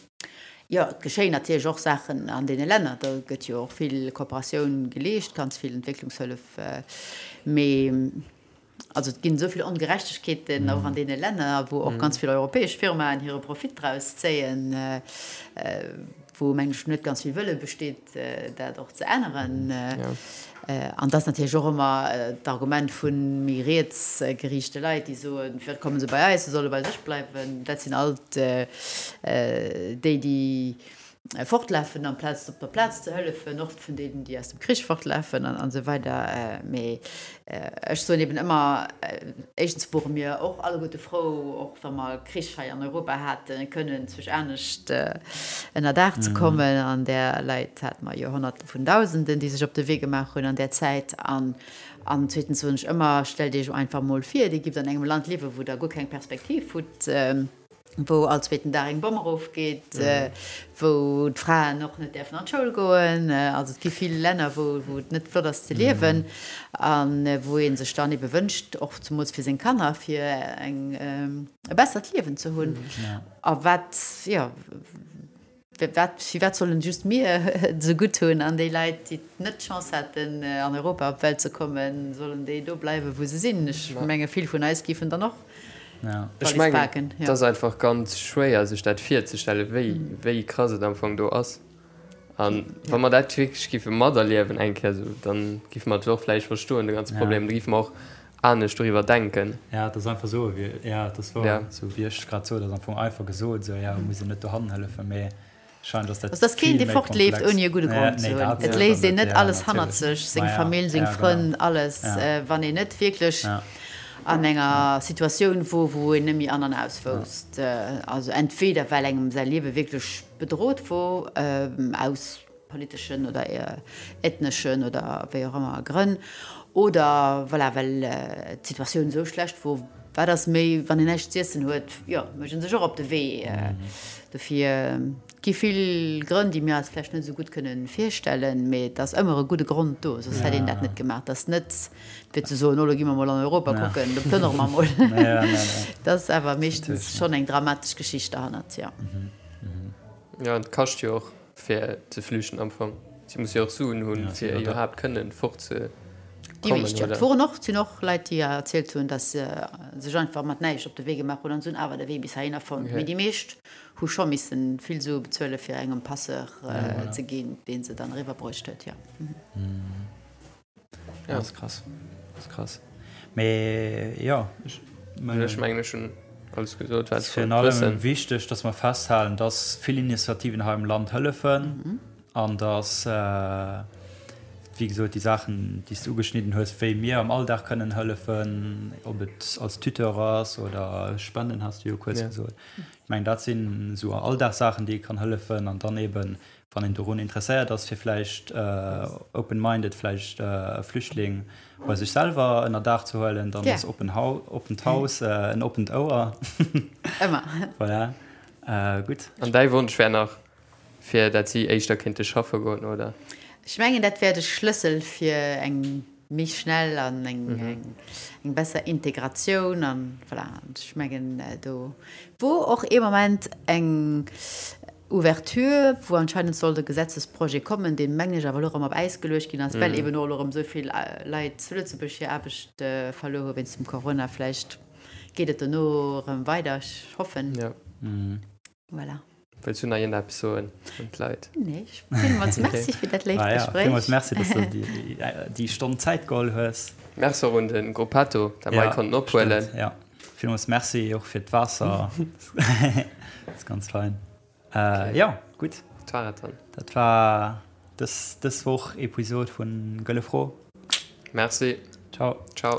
Jo, et geschéien natierlech och Saachen an deene Länner. Do gëtt jo och vill Kooperatioun geleescht, ganz vill Entwécklungshëllef. Mee also et ginn esou vill Ongerechtegkeeten och an deene Länner, wou och ganz vill europäesch Firmaen hire Profit draus zéien, wou, mengen ech, net ganz vill Wëlle besteet, dat och ze änneren. An dat ass natierlech och ëmmer d'Argument vu méi riets geriichte Leit, déi soen, Firwat komme se bei eis, se solle bei sech bleiwen. Dat sinn alt déi, déi. Fortlafen amplaz op der Plaz ze hëllefen, och vun deenen, déi aus dem Krich fortlafen an esou weider. Mee ech soen eben ëmmer, éischtens wore mir och alleguerte frou, och wa mer Krich hei an Europa haten, kënnen zwech anescht ënner Daach ze kommen. An där Leit hate mer jo Honnerte vun Dausenden, déi sech op de Wee gemaach hunn an där Zäit. An zweetens soen ech ëmmer, stellt Iech einfach emol vir, Dir gift an engem Land liewen, wou Der guer keng Perspektiv hutt. wou all zweeten Dag eng Bomm erofgeet, wou d'Fraen och net däerfen an d'Schoul goen. Also et gi vill Länner, wou wou et net flott ass ze liewen a wou ee sech dann ebe wënscht, och zemools fir seng Kanner, fir eng e bessert Liewen ze hunn. A wat, jo. Wat, firwat sollen just mir et esou gutt hunn an déi Leit, déi net d'Chance haten, an Europa op d'Welt ze kommen, sollen déi do bleiwen, wou se sinn? Ech menge vill vun eis géifen dann och Ech d'Wallis mengen, paken. et ass einfach ganz schwéier, sech dat virzestellen, wéi, wéi krass et am Fong do ass. A wa mer dat wierklech géife materliewen eng Kéier esou, da géife mer et och vläicht verstoen, de ganze Problem. Da géife mer och anescht doriwwer denken. Ja, et ass einfach esou, wéi, ja, et ass wouer, ja. Esou wéi ech grad sot, ass am Fong einfach gesot, esou, ja, muss een net dohannen hëllefen, mee scheint ass dat Also, et ass keen, vill dee méi fortleeft, komplex. ouni e gudde Ja, Grond ze nee, hunn. dat Et sécher léisst een net, net ja, alles hannert natierlech. sech, seng Ma ja, Famill, seng ja, genau. Frënn, alles, Ja. wann een net wierklech Ja. an enger Situatioun wor, wou een net méi an an aus wousst. Also entweder well engem säi Liewe wierklech bedrot wor, aus politeschen oder ethneschen oder wéi och ëmmer Grënn, oder voilà, well d'Situatioun esou schlecht wor, wat ass méi, wann een näischt z'iessen huet, jo, mécht ee sech och op de Wee. Dofir, et gi vill Grënn, déi mir eis vläicht net esou gutt kënne virstellen, mee et ass ëmmer e gudde Grond do, soss hätt een dat net gemaach. Et ass net fir ze soen, oh lo gi mer mol an Europa kucken, do plënnere mer mol. Et ass awer meeschtens schonn eng dramatesch Geschicht derhannert, jo. Jo, an et kascht jo och. Fir ze flüchten am Fong. Si musse jo och Suen hunn, fir iwwerhaapt kënnen fort ze Déi kommen, meescht jo. oder? Et woren och, et sinn och Leit, déi erzielt hunn, datt se sech einfach mat näischt op de Wee gemaach hunn an se hunn awer de Wee bis heihinner fonnt. Mee déi meescht hu scho missen vill Sue bezuele fir engem Passeur ze ginn, dee se dann eriwwer bruecht huet, jo. Ja, ass krass. Ass krass. Mee jo, ech Ech mengen, ech hunn alles gesot, wat ech wollt wëssen. Virun allem wichteg, dass mer festhalen, dass vill Initiativen hei am Land hëllefen an dass, wéi gesot, déi Saachen, déi s de ugeschnidden hues, wéi mir am Alldag kënnen hëllefen, ob et als Tuteur ass oder Spenden, has de jo kuerz gesot. Ech mengen, dat sinn esou Alldagssachen, déi ee kann hëllefen an dann eeben Wann een dorun interesséiert ass, fir vläicht open-minded vläicht e Flüchtling bei sech selwer ënner Daach ze huelen, dann ass open oppent Haus en oppent Ouer. Ëmmer. Voilà. Gutt. An däi Wonsch wär nach, fir dat si éischter kéinte schaffe goen, oder? Ech mengen, dat wär de Schlëssel fir eng méi schnell an eng besser Integratioun an voilà. Ech mengen, do wor och ee Moment eng Ouverture, wou anscheinend sollt e Gesetzesprojet kommen, deen, mengen ech, awer elo erëm op Äis geluecht ginn ass, well eben och elo erëm esou vill Leit zu Lëtzebuerg hir Aarbecht verluer hu wéinst dem Corona. Vläicht geet et dono erëm weider, ech hoffen. Voilà. Wëlls du nach iergendeppes soen un d'Leit? Nee, ech villmools Merci fir dat léift Gespréich. Villmools Merci, dass du dir déi Stonn Zäit geholl hues. Merci och un de Gruppetto, dat mer hei konnten ophuelen. Jo, villmools Merci och fir d'Waasser. Dat ass ganz fein. Jo, gutt. Dat war et dann. Dat war dës, dës Woch Episod vun Gëlle Fro. Merci. Ciao. Ciao.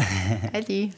Äddi.